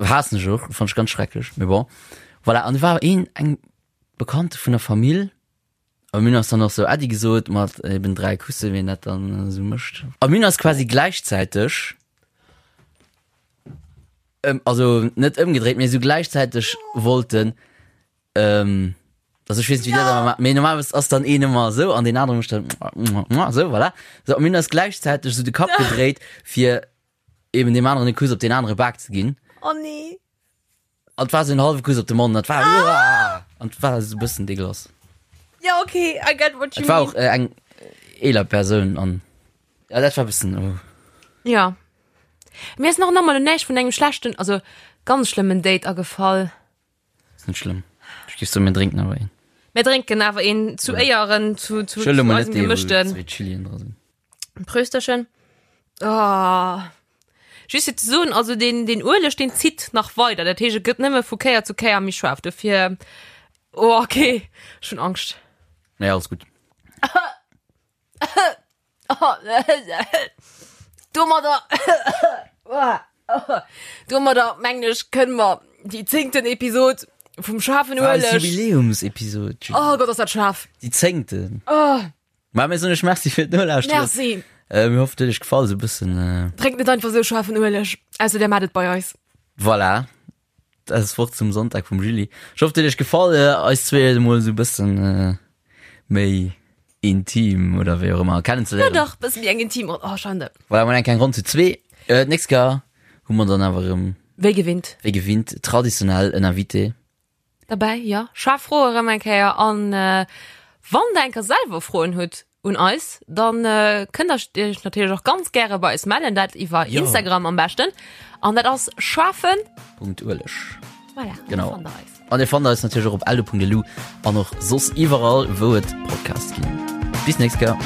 Haassen ech och, fand ech ganz schrecklech, mee bon. Voilà, an du war een eng Bekannte vun der Famill a mir hunn eis dann och sou Äddi gesot mat eben 3 Kusse wéi een dat dann esou mécht. A mir hunn eis quasi gläichzäiteg Ëm, also net ëmgedréit, mee esou gläichzäiteg wollten, ähm, also ech weess net, wéi dir dat ëmmer maacht, mee normalerweis ass dann een ëmmer esou an deen anere mécht dann esou, voilà. Sou, a mir hunn eis gläichzäiteg esou de Kapp gedréit, fir eben deem aneren e Kuss op deen anere Bak ze ginn. Oh nee. An et war esou en hallwe Kuss op de Mond, an et war, uah, an et war esou e bëssen dégueulasse. Ja, okay, I get what you Et war mean. och eng eeler Persoun an ja, dat war e bëssen, oh. Ja. Mir ass nach nach mol näischt vun engem schlechten, also ganz schlëmmen Date agefall. Ass net schlëmm. Ech géif soen, mir drénken awer een. Mir drénken awer een zu Éieren, zu, zu, Ech huele zu mol net eisem dee, wou gemëschten. zwee Chilien dra sinn. Prösterchen. Oh. Just fir ze soen, also den, den Ueleg, den zitt nach weider. Dat heescht, et gëtt nëmme vu Kéier zu Kéier méi schaarf. Dofir, oh, okay, ech hunn Angscht. Nee, alles gutt. Domadder, domadder mengen ech, kënne mer déi zéngten Episod vum schaarfen War eis Ueleg. Jubiläumsepisod, Julie. Oh Gott, ass dat schaarf. Déi zéngten. Oh. Ma mir soen iech Merci fir d'Nolauschteren. Merci. Äh, mir hoffen, et huet iech gefall, esou e bëssen. Äh, Drénkt net einfach esou schaarfen Ueleg, ausser der maacht et bei eis. Voilà. Dat ass d'Wort zum Sonntag vum Julie. Ech hoffe, et huet iech gefall, äh, eis zwee emol esou e bëssen äh, méi intim oder wéi och ëmmer kennenzeléieren. Ja dach, bësse méi eng intim Ronn. Oh, Schande. Voilà, mol eng kleng Ronn zu zwee. Äh, d'nächst Kéier hu mer dann awer erëm, Wéi gewinnt. wéi gewinnt, traditionell en Invité. Derbäi, jo. Schaarf Froe erëm eng Kéier. An wann der eng Kéier selwer Froen hutt un eis, dann kënnt der iech natierlech och ganz gäre bei eis mellen, dat iwwer Instagram am beschten. An dat ass schaarfen. Punkt Ueleg. Voilà, Genau. do fannt der eis. An dir fannt eis natierlech och op eldo.lu an och soss iwwerall, wou et Podcasts ginn. Bis nächst Kéier.